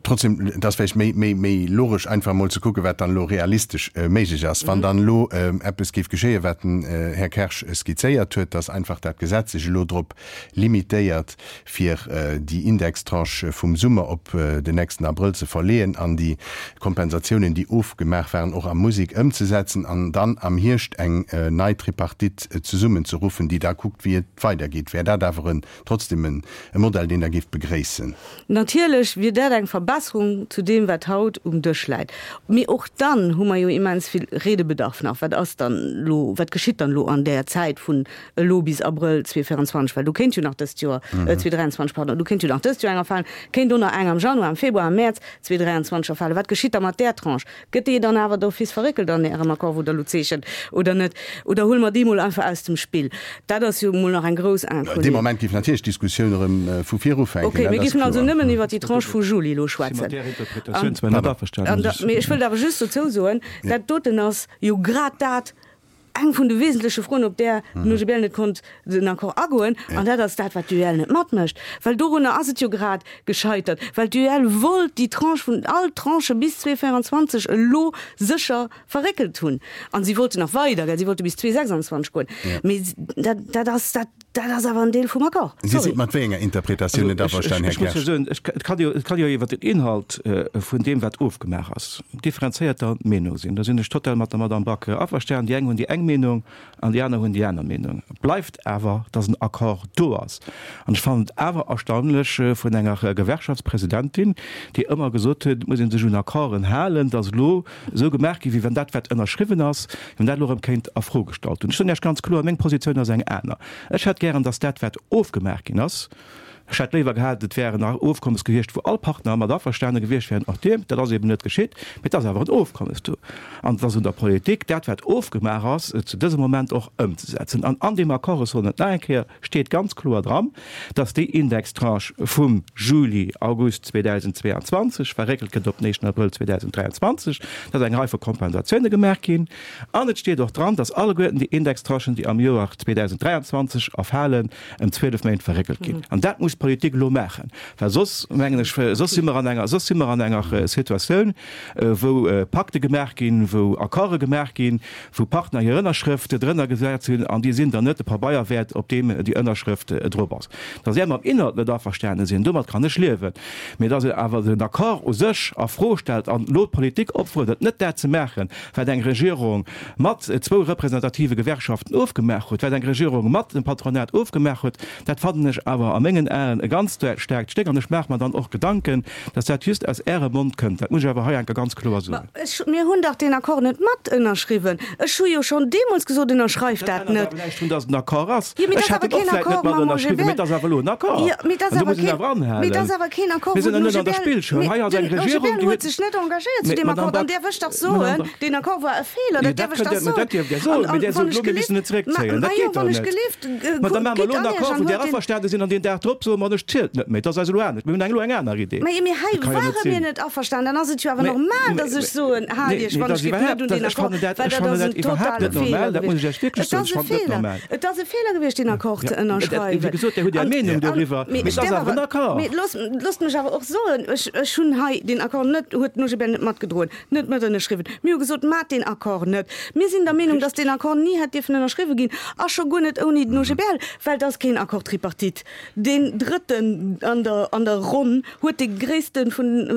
Trotzdem, et ass vläicht méi, méi, méi logesch einfach emol ze kucken, wat dann elo realistesch méiglech ass. Wann dann elo eppes géif geschéien, wat den Här Kersch skizzéiert huet, dass einfach dat Gesetz sech elo drop limitéiert, fir déi Indextranche vum Summer op den nächsten Abrëll ze verleeën an déi Kompensatiounen, déi ofgemaach waren, och a Musek ëmzesetzen an dann am Hierscht eng nei Tripartite zesummenzeruffen, déi da kuckt, wéi et weidergeet, wär dat awer en trotzdem e Modell, deen Der géift begréissen? Natierlech wier dat eng Verbesserung zu deem, wat haut um Dësch läit. Mee och dann hu mer jo immens vill Redebedarf nach. Wat ass dann elo, wat geschitt dann elo an där Zäit vun elo bis Abrëll 2024? Well do kéint jo nach dëst Joer, 2023, pardon, do kéint jo nach dëst Joer eng erfalen, kéint och nach eng am Januar, am Februar, am Mäerz 2023 erfalen. Wat geschitt da mat där Tranche? Gëtt déi dann awer d'office verréckelt an Ärem Accord, wou Der elo zeechent, oder net? Oder huele mer déi mol einfach aus dem Spill? Dat ass jo mol nach eng grouss Inconnue. Dee Moment géif natierlech d'Diskussioun erëm vu vir ufänken. Okay, mir géifen also nëmmen iwwert déi Tranche vu Juli elo schwätzen. Mat där Interpretatioun zwar net averstanen, muss ech. Mee ech wëllt awer just dozou soen, dat doten ass jo grad dat, eng vun de wesentleche Froen, op där den OGBL net konnt den Accord agoen, an dat ass dat, wat d'UEL net matmécht, well dorunner ass et jo grad gescheitert, well d'UEL wollt déi Tranche vun, all d'Tranchë bis 2024 elo sécher verréckelt hunn, a si wollten nach weider, gell, si wollte bis 2026 goen, mee dat, dat ass, dat, dat ass awer en Deel vum Accord. Dir Sorry. sidd mat wéi enger Interpretatioun net averstanen, Här Ech muss jo Kersch? soen, ech, et kann jo, et kann jo iwwer den Inhalt vun deem, wat ofgemaach ass, differenzéierter Meenung sinn. Do sinn ech total mat der Madame Back averstanen. Déi eng hunn déi eng Meenung an déi aner hunn déi aner Meenung. Et bleift awer, dass en Accord do ass. An ech fannen et awer erstaunlech vun enger Gewerkschaftspresidentin, déi ëmmer gesot huet, et muss ee sech un Accorden halen, dass elo esou gemaach ginn, wéi wann dat, wat ënnerschriwwen ass, wéi wann dat elo erëm kéint a Fro gestallt hunn. Ech soen Iech ganz kloer, meng Positioun ass eng aner. Ech hätt gären, dass dat, wat ofgemaach ginn ass, ech hätt léiwer gehat, et wär en Ofkommes gewiescht, wou all Partner mat averstane gewiescht wären, och Dir, dat ass eben net geschitt, mee et ass awer en Ofkommes do. An et ass un der Politik, dat, wat ofgemaach ass, zu dësem Moment och ëmzesetzen. An an deem Accord, ech soen et nach eng Kéier, steet ganz kloer dran, dass déi Indextranche vum Juli, August 2022 verréckelt gëtt op den éischten Abrëll 2023, dass eng Rei vu Kompensatioune gemaach ginn. An et steet och dran, dass alleguerten déi Indextranchen, déi am Joer 2023 erfalen, ëm 12 Méint verréckelt ginn. An dat muss d'Politik elo maachen, well soss, mengen ech, soss si mer an enger, soss si mer an enger Situatioun, wou Pakte gemaach ginn, wou Accorde gemaach ginn, wou Partner hir Ënnerschrëft drënner gesat hunn an déi sinn dann net de Pabeier wäert, op deem déi Ënnerschrëft drop ass. Datt är mam Inhalt net averstane sinn, domat kann ech liewen, mee datt een awer den Accord u sech a Fro stellt an elo d'Politik opfuerdert, net dat ze maachen, wat eng Regierung mat zwou representative Gewerkschaften ofgemaach huet, wat eng Regierung mat dem Patronat ofgemaach huet, dat fannen ech awer a mengen Aen e ganz staarkt Stéck an ech maache mer dann och Gedanken, Dass dat just aus Ärem Mond kënnt, dat muss ech awer hei enker ganz kloer soen. Ma ech, mir hunn dach deen Accord net mat ënnerschriwwen. Ech hu jo schonn deemools gesot, Ënnerschreift dat Dat ännert net. awer näischt drun, dass et en Accord ass. Jo, mee Ech dat ass hätt awer en och keen vläicht net Accord mat mam ënnerschriwwen, mee OGBL. et ass awer elo en Accord. Jo, mee et ass An do awer muss een keen, awer anhalen. mee et ass awer keen Accord, Mir wou sinn den jo net an der OGBL, Spillschoul. mee Hei ass eng den Regierung, OGBL déi huet huet. sech net engagéiert zu Mee, deem Madame Accord. An Back, däerf ech dach Madame soen, Back. deen Accord war e Feeler, Jo, dat dat däerf ech kënnt dach Dir, mä soen. dat dierft Dir An, soen, mee an Dir wann sot ech elo, mir gelift, müssen et ma, zréckzéien. ma Dat jo, geet dach wann ech net. gelift, Ma da kuckt, maache mer gitt elo en an Iech Accord, an wou Dir huelt deen. averstane sinn, an deen Dag drop soe mer, ech zielt net méi. Dat ass eis elo anescht. Mir hunn eng elo eng aner Idee. Mä mee hei Dat ka jo net ware mir sinn. net averstanen. Dann ass et jo awer Mä, normal, mä, dass ech mä, soen, Haalt nee, Iech nee, wann dat ech ass géif net iwwerhaapt, un dat, deen ech Accord, fannen dat, well ech dat fannen ass dat en iwwerhaapt totale net normal. Feeler Dat muss ech gewiescht. Iech wierklech Et soen. ass Ech e fannen et net Feeler. normal. Et ass e Feeler gewiescht, deen Accord ze Ja, dat, wéi ënnerschreiwen. gesot, Dir hutt Är An, Meenung an, doriwwer, mee mee ech et ass däerf awer en awer, Accord. mee loosst, loosst mech awer och soen, ech, ech hunn hei deen Accord net, huet den OGBL net matgedroen, net mat ënnerschriwwen. Mir hu gesot, Maacht deen Accord net. Mir sinn der Meenung, dass deen Accord ni hätt dierfen ënnerschriwwe ginn, a scho guer net ouni den OGBL, well et ass keen Accord tripartite. Deen Drëtten an der, an der Ronn huet dee gréisste vun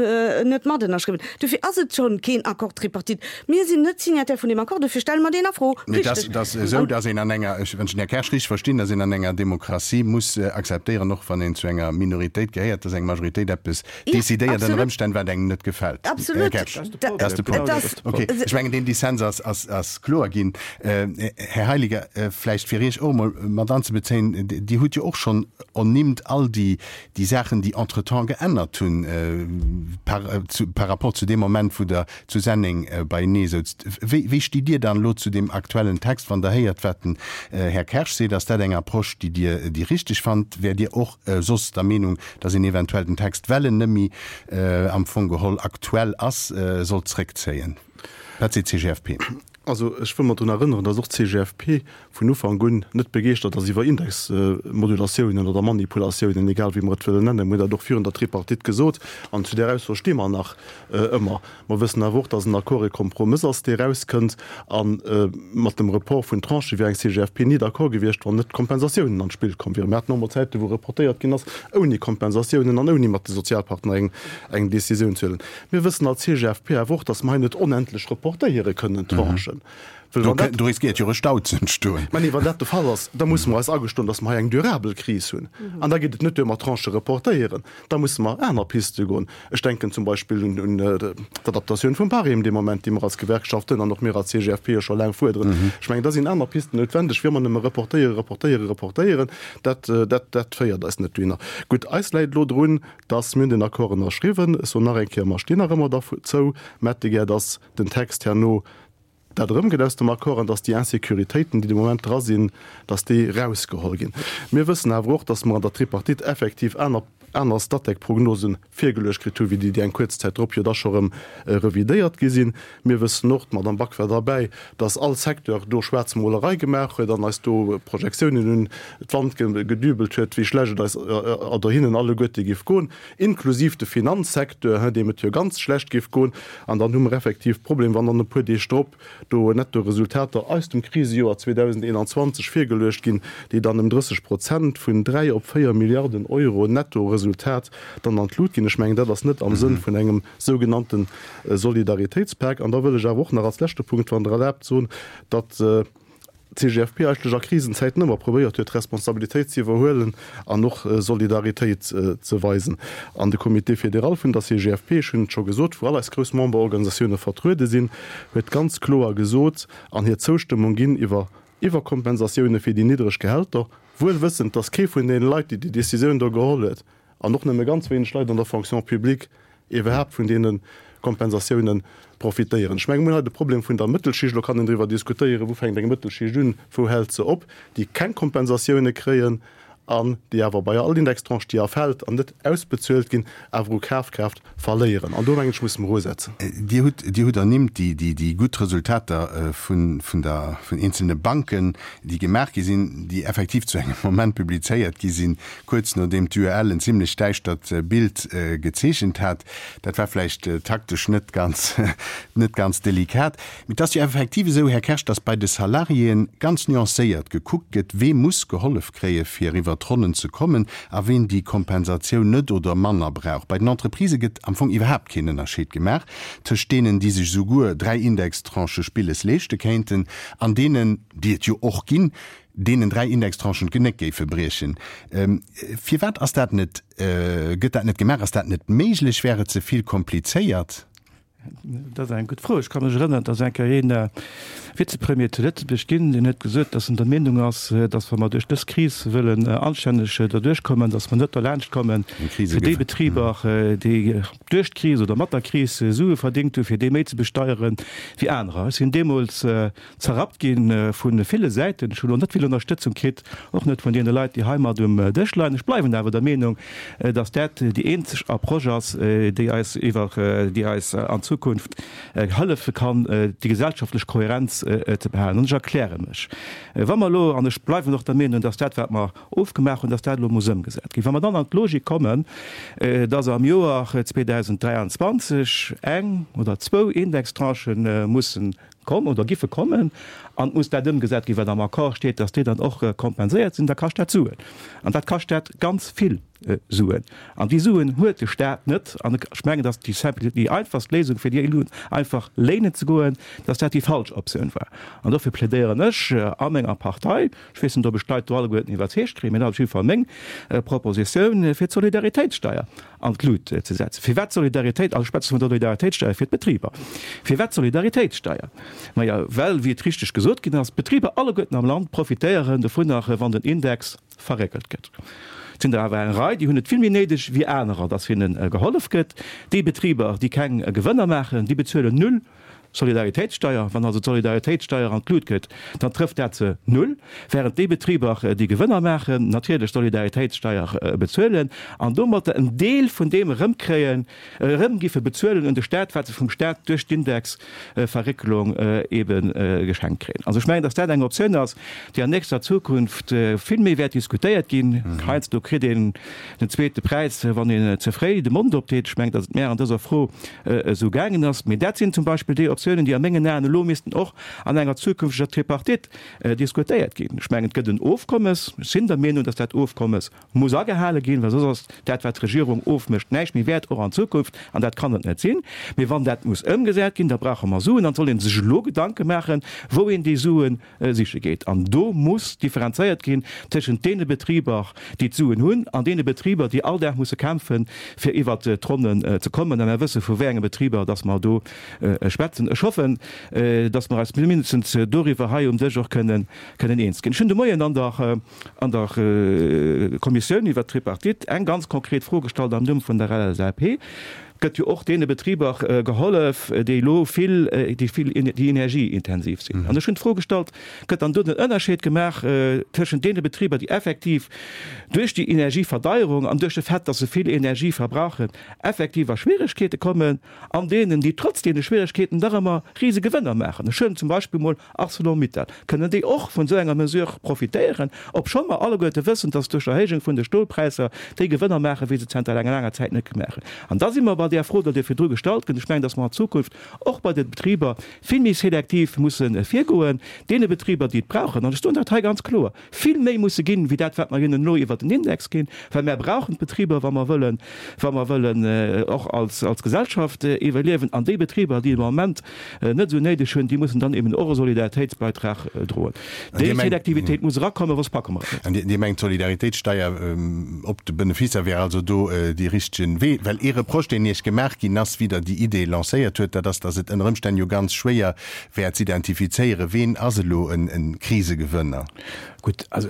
net mat ënnerschriwwen. Dofir ass et schonn keen Accord tripartite. Mir sinn net Signataire vun deem Accord, dofir stelle mer deen a Fro. Mee et ass, Richteg. et ass esou, dass een an enger, ech, wann ech den Här Kersch richteg verstinn, dass een an enger Demokratie muss akzeptéieren, och wann een zu enger Minoritéit gehéiert, dass eng Majoritéit eppes Ja, decidéiert ënner absolut. Ëmstänn, wat engem net gefält. Här Absolut. Kersch, Dat dat ass de Et Punkt. ass. Okay, ech mengen, deen Dissens ass, ass, ass kloer ginn. Här Heiliger, vläicht fir Iech och emol mat anzebezéien, Dir hutt jo och schonn ernimmt all déi, déi Saachen, déi entretemps geännert hunn par, par rapport zu deem Moment, wou Der zu Senneng beienee souzt. Wéi, wéi stitt Dir dann elo zu deem aktuellen Text, wann Der héiert, wat den Här Kersch seet? Ass dat eng Approche, déi Dir déi richteg fannt? Wäert Dir och soss der Meenung, dass een eventuell den Text, well en net méi am Fong geholl aktuell ass, sollt zréckzéien? Wat seet d'CGFP? Also ech wëll mer drun erënneren, dass och d'CGFP vun Ufank un net begeeschtert ass iwwer Indexmodulatiounen oder Manipulatiounen, egal wéi mer et wëllen nennen. Mir hunn dat och virun der Tripartite gesot an zu där Ausso sti mer nach ëmmer. Mer wëssen awer och, dass en Accord e Kompromëss ass, dee erauskënnt. A mat dem Report vun Tranchë wier eng CGFP ni d'accord gewiescht, wann net d'Kompensatiounen an d'Spill komm wieren. Mir haten och mol Zäiten, wou reportéiert ginn ass, ouni Kompensatiounen an ouni mat de Sozialpartner eng Décisioun ze huelen. Mir wëssen als CGFP awer och, datt mer hei net onendlech reportéiere kënnen, d'Tranchen. Well wann dat. Do riskéiert jo e Stau ze entstoen. Mä nee, wann dat de Fall ass, da musse mer eis agestoen, datt mer hei eng durabel Kris hunn. An da geet et net duer mat Tranchë reportéieren. Da musse mer aner Piste goen. Ech denken zum Beispill un d'Adaptatioun vum Barème dee Moment, déi mer als Gewerkschaften an och mir als CGFP jo scho laang fuerderen. Ech mengen, da sinn aner Pisten noutwendeg, wéi ëmmer nëmme reportéieren, reportéieren, reportéieren. Dat, dat, dat féiert eis net dohinner. Gutt, eis läit elo drun, Dass mir hunn den Accord ënnerschriwwen. Ech soen nach eng Kéier, mer stinn nach ëmmer derzou. Mä hätte gär, dass den Text herno dat erëmgëtt aus dem Accord an dass déi Insécuritéiten, déi de Moment dra sinn, dass déi erausgeholl ginn. Mir wëssen awer och, dass mer an der Tripartite effektiv aner, aner Statec-Prognosen virgeluecht kritt hu wéi déi, déi eng kuerz Zäit drop jo da scho erëm revidéiert gi sinn. Mir wëssen och, d'Madame Back war derbäi, dass all Secteur do Schwaarzmolerei gemaach huet an eis do Projektiounen un d'Wand gedübelt huet, wéi schlecht et eis oder hinnen alleguerte géif goen, inklusiv de Finanzsecteur, deem et jo ganz schlecht géif goen. An dann hu mer effektiv Problem, wann dann e puer Deeg drop do Nettoresultater aus dem Krisejoer 2021 virgeluecht ginn, déi dann ëm 30 Prozent, vun 3 op 4 Milliarden Euro Nettoresultat, dann an d'Lut ginn. Ech mengen, dat ass net am Sënn vun engem sougenannte Solidaritéitspak. An da wëll ech awer och nach als leschte Punkt, wann Der erlaabt, soen, datt d'CGFP eigentlech a Krisenzäiten ëmmer probéiert huet, Responsabilitéit ze iwwerhuelen an och Solidaritéit ze weisen. An de Comité fédéral vun der CGFP, ech hunn et scho gesot, wou all eis grouss Memberorganisatioune vertruede sinn, huet ganz kloer gesot an hir Zoustëmmung ginn iwwer Iwwerkompensatioune fir déi niddreg Gehälter, wuel wëssend, datt kee vun deene Leit, déi déi Decisioun do geholl huet, an och nëmme ganz wéineg Leit an der Fonction publique iwwerhaapt vun deene Kompensatioune profitéieren. Ech menge mir hunn hei de Problem vun der Mëttelschicht, elo kann een driwwer diskutéieren, wou fänkt eng Mëttelschicht un, wou hält se op, déi keng Kompensatioune kréien an déi awer bei all Indextranche, déi erfält an net ausbezuelt ginn, awer u Kafkraaft verléieren. An do mengen ech, musse mer usetzen. Dir hutt, Dir hutt ernimmt déi, déi, déi gutt Resultater vun, vun der, vun eenzelne Banken, déi gemaach gi sinn, déi effektiv zu engem Moment publizéiert gi sinn, kuerz nodeem d'UEL en zimlech däischtert Bild gezeechent hat. Dat war vläicht taktesch net ganz, net ganz delikat. Mee et ass jo effektiv esou, Här Kersch, datt bei de Salariéen ganz nuancéiert gekuckt gëtt, wee muss gehollef kréie fir iwwer d'Ronnen ze kommen a ween déi Kompensatioun net oder manner brauch. Bei den Entreprisë gëtt am Fong iwwerhaapt keen Ënnerscheed gemaach tëscht deenen, déi sech esouguer 3 Indextranchë Spilles leeschte kéinten an deenen, déi et jo och ginn, deenen 3 Indextranchen d'Genéck géife briechen. Firwat ass dat net, gëtt dat net gemaach? Ass dat net méiglech? Wär et ze vill komplizéiert? Dat ass eng gutt Fro. Ech ka mech erënneren, et ass eng Kéier een Vizepremier zu Lëtzebuerg ginn, deen huet gesot, datt en der Meenung ass, datt wa mer duerch dës Kris wëllen anstänneg derduerch kommen, datt mer net derlaanscht kommen, fir déi Betriber, déi duerch d'Kris oder mat der Kris Sue verdéngt hunn, fir déi méi ze besteiere wéi anerer. Ech sinn deemools Zerrappt gi vu ville Säiten. Ech hunn elo net vill Ënnerstëtzung kritt, och net vun deene Leit, déi hei mat um Dësch leien. Ech bleiwen awer der Meenung, datt dat déi eenzeg Approche ass, déi eis iwwer, déi eis an Zukunft hëllefe kann, déi gesellschaftlech Kohärenz ze behalen. An ech erkläre mech. Wa mer elo, an ech bleiwen och der Meenung, datt dat, wat mer ofgemaach hunn, datt dat elo muss ëmgesat ginn. Wa mer dann an d'Logik kommen, datt am Joer 2023 eng oder zwou Indextranchë mussen Komm oder giffe kommen, an et muss dat ëmgesat ginn, wat am Accord steet, dass déi dann och kompenséiert sinn, da kascht dat Suen. An dat kascht dat ganz vill Suen. An déi Suen huet de Stat net. An ech mengen, dass déi simple, déi einfachst Léisung, fir déi elo einfach léinen ze goen, dass dat déi falsch Optioun war. An dofir plädéieren ech a menger Partei, ech weess net, ob ech d'Leit do alleguerten iwwerzeegt kréien, mee dat ass op jidde Fall meng Propositioun, fir d'Solidaritéitssteier an d'Lut ze setzen. Firwat Solidaritéit? Also ech schwätze vun der Solidaritéitssteier fir d'Betriber. Firwat Solidaritéitssteier? Maja, well, wéi et richteg gesot ginn ass, d'Betriber alleguerten am Land profitéieren dovunner, wann den Index verréckelt gëtt. Et sinn der awer eng Rei, déi hunn et vill méi néideg wéi anerer, dass hinne gehollef gëtt. Déi Betriber, déi keng Gewënner maachen, déi bezuelen null. Solidaritéitssteier. Wann also d'Solidaritéitssteier an d'Lut gëtt, dann trëfft dat se null, während déi Betriber, déi Gewënner maachen, natierlech Solidaritéitssteier bezuelen an domatter en Deel vun deem erëmkréien, erëm giffe bezuelen un de Staat, wat se vum Staat duerch d'Indexverréckelung ebe geschenkt kréien. Also ech mengen, datt dat eng Optioun ass, déi an nächster Zukunft vill méi wäert diskutéiert ginn. Heiansdo kritt een den zweete Präis, wann een ze fréi de Mond opdeet. Ech mengen, datt et mär an dëser Fro esou gaangen ass. Mee dat sinn zum Beispill déi Optiounen, déi a mengen Aen elo missten och an enger zukünfteger Tripartite diskutéiert ginn. Ech mengen, et gëtt en Ofkommes. Ech sinn der Meenung, datt dat Ofkommes muss agehale ginn, well soss ass dat, wat d'Regierung ofmécht, näischt méi wäert, och an Zukunft, an dat kann et net sinn. Mee wann dat muss ëmgesat ginn, da brauche mer Suen an et soll ee sech elo Gedanke maachen, wou een déi Sue siche geet. An do muss differenzéiert ginn tëschent deene Betriber, déi d'Suen hunn, an deene Betriber, déi all Dag musse kämpfen, fir iwwert d'Ronnen ze kommen. A mer wësse vu wéi enge Betriber dass mer do schwätzen. Ech hoffen, dass mer eis mindestens doriwwer hei um Dësch och kënnen eens ginn. Ech hunn de Moien an der an der Kommissioun iwwert d'Tripartite eng ganz konkret Fro gestallt am Numm vun der LSAP. Gëtt jo och deene Betriber gehollef, déi elo vill, déi vill, déi energieintensiv sinn. An ech hunn d'Fro gestallt, Gëtt dann do den Ënnerscheed gemaach tëschent deene Betriber, déi effektiv duerch déi Energieverdeierung an duerch de Fait, dass se vill Energie verbrauchen, effektiv a Schwieregkeete kommen, an deenen, déi trotz deene Schwieregkeeten dach ëmmer Risegewënner maachen? Ech huelen zum Beispill mol Arcelor-Mittal, kënnen déi och vun esou enger Mesure profitéieren, obschonn mer alleguerte wëssen, dass duerch d'Erhéijung vun de Stolpräisser déi Gewënner maachen, wéi se zanter enger laanger Zäit net gemaach hunn. An da si mer bei där Fro, déi Dir virdru gestallt gëtt. Ech mengen, dass mer an Zukunft och bei de Betriber vill méi selektiv musse virgoen, deene Betriber, déi et brauchen, an ech soen dat hei ganz kloer, vill méi musse ginn, wéi dat, wat mer hinnen elo iwwert den Index ginn, well mär brauchen d'Betriber, wa mer wëllen, wa mer wëllen och als, als Gesellschaft iwwerliewen. An déi Betriber, déi et am Moment net esou néideg hunn, déi mussen dann eben och e Solidaritéitsbeitrag droen. Déi Selektivitéit muss erakommen, soss packe mer et net. An Dir mengt, d'Solidaritéitssteier op de Beneficer wär also do dee richtegen Wee? Well ee Reproche, deen Iech gemaach ginn ass, wéi Der déi Idee lancéiert huet, dat ass, datt et ënner Ëmstänn jo ganz schwéier wär z'identifizéieren, ween ass elo e Krisegewënner. Gutt, also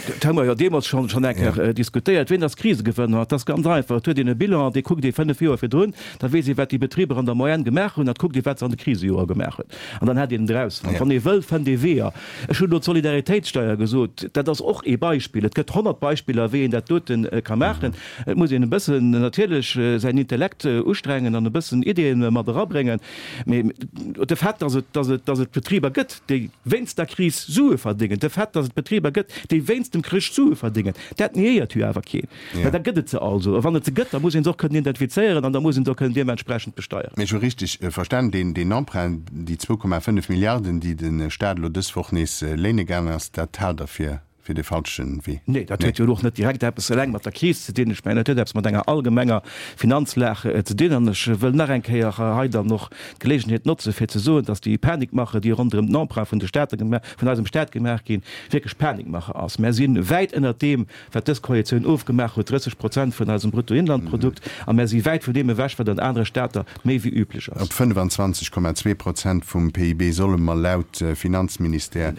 dat hu mer jo deemools schonn schonn eng Kéier diskutéiert. Ween ass Krisegewënner? Et ass ganz einfach, Et huet een e Bilan, dee kuckt ee 5 Joer virdrun, da weess ee wat déi Betriber an der Moyenne gemaach hunn, an kuckt ee wat se an de Krisejoer gemaach hunn, an dann hätt een et erausfonnt. Wann ee wëll, fënnt ee Weeër. Ech hunn elo d'Solidaritéitssteier gesot, dat ass och ee Beispill. Et gëtt 100 Beispiller, wéi een dat dote ka maachen. Et muss een e bëssen natierlech säin Intellekt ustrengen an e bëssen Ideeën mat erabréngen. Mee de Fait, dass et, dass et, dass et Betriber gëtt, déi wéinst der Kris Sue verdéngen, de Fait, dass et Betriber gëtt, déi wéinst dem Krich Sue verdéngen, dat niéiert jo awer keen. Mä da gëtt et se also. A wann et se gëtt, da muss ee se och kënnen identifizéieren an da muss ee se och kënnen deementsprechend besteieren. Mee ech hu richteg verstan, deen, deen Emprunt, déi 2,5 Milliarden, déi de Stat elo dës Woch nees léine gaangen ass, dat haalt Der fir fir de falschen Wee. Nee, dat huet jo elo och net direkt eppes eleng mat der Kris ze dinn. Ech mengen, dat huet eppes mat enger allgemenger Finanzlag ze dinn. An ech wëll nach eng Kéier hei dann och d'Gelegenheet notzen, fir ze soen, dass déi Panikmache, déi ronderëm den Emprunt vun de Staate vun eisem Stat gemaach ginn, wierklech Panikmache ass. Mär si wäit ënnert deem, wat dës Koalitioun ofgemaach huet, 30 Prozent vun eisem Bruttoinlandprodukt, a mär si wäit vun deem ewech, wat an anere Stater méi wéi üblech ass. Op 25,2 Prozent vum PIB solle mer laut Finanzministère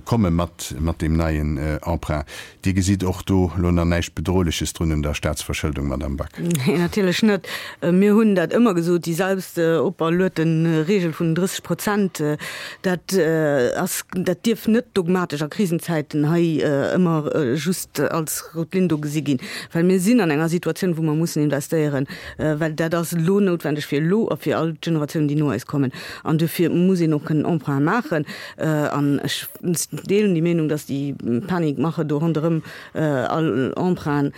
komme mat mat deem neien Emprunt. Dir gesitt och do elo nach näischt Bedrohleches drun un der Staatsverschëldung, Madamm Back? Nee, natierlech net. Mir hunn dat ëmmer gesot, déi selbst operluete Regel vun den 30 Prozent, dat ass, dat dierf net dogmatesch a Krisenzäiten hei ëmmer just als rout Linn do gesi ginn, well mir sinn an enger Situatioun, wou mer mussen investéieren, well dat ass elo noutwendeg fir elo a fir all d'Generatiounen, déi no eis kommen. An duerfir muss een och kënnen Emprunte maachen. An ech deelen déi Meenung, dass déi Panikmache do ronderëm all Emprunten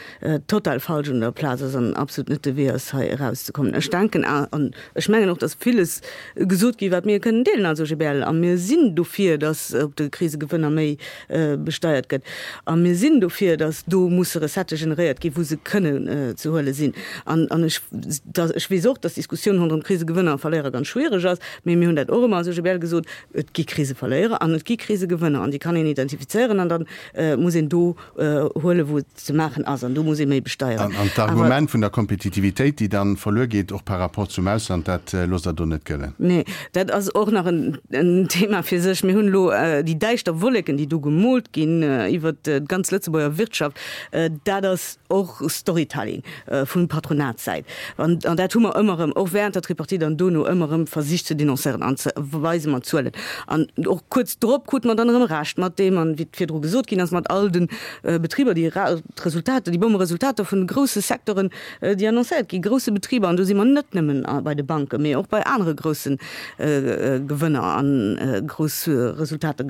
total falsch un der Plaz ass an absolut net de Wee ass, hei erauszekommen. Ech denken an ech mengen och, dass villes gesot gi wat mir kënnen deelen als OGBL. A mir sinn dofir, dass op de Krisegewënner méi besteiert gëtt. A mir sinn dofir, dass do musse Recettë generéiert ginn, wou se kënnen ze huele sinn. An ech, ech weess och, dass d'Diskussioun ronderëm Krisegewënner a Verléierer ganz schwiereg ass, mee mir hunn dat och ëmmer als OGBL gesot, Et gi Kriseverléierer an et gi Krisegewënner an déi kann een identifizéieren an dann. muss een do huelen, wou et ze maachen ass, an do muss ee méi besteieren. An d'Argument vun der Kompetitivitéit, déi dann verluer geet, och par rapport zum Ausland, dat loosst Der do net gëllen? Nee, dat ass och nach en Thema fir sech. Mir hunn elo déi däischter Wolleken, déi do gemoolt ginn iwwert d'ganz Lëtzebuerger Wirtschaft, dat ass och Storytelling vun Patronatssäit. An dat hu mer ëmmer erëm, och während der Tripartite an dono, ëmmer erëm versicht ze denoncéieren an ze weise mat Zuelen. An och kuerz drop krute mer dann erëm Recht mat deem, an wéi virdru gesot ginn ass, mat all de Betriber, déi d'Resultater, déi Bommeresultater vun de grousse Secteuren, déi annoncéiert gi grousse Betriber, an do si mer net nëmmen bei de Banken, mee och bei anere grousse Gewënner a grouss Resultater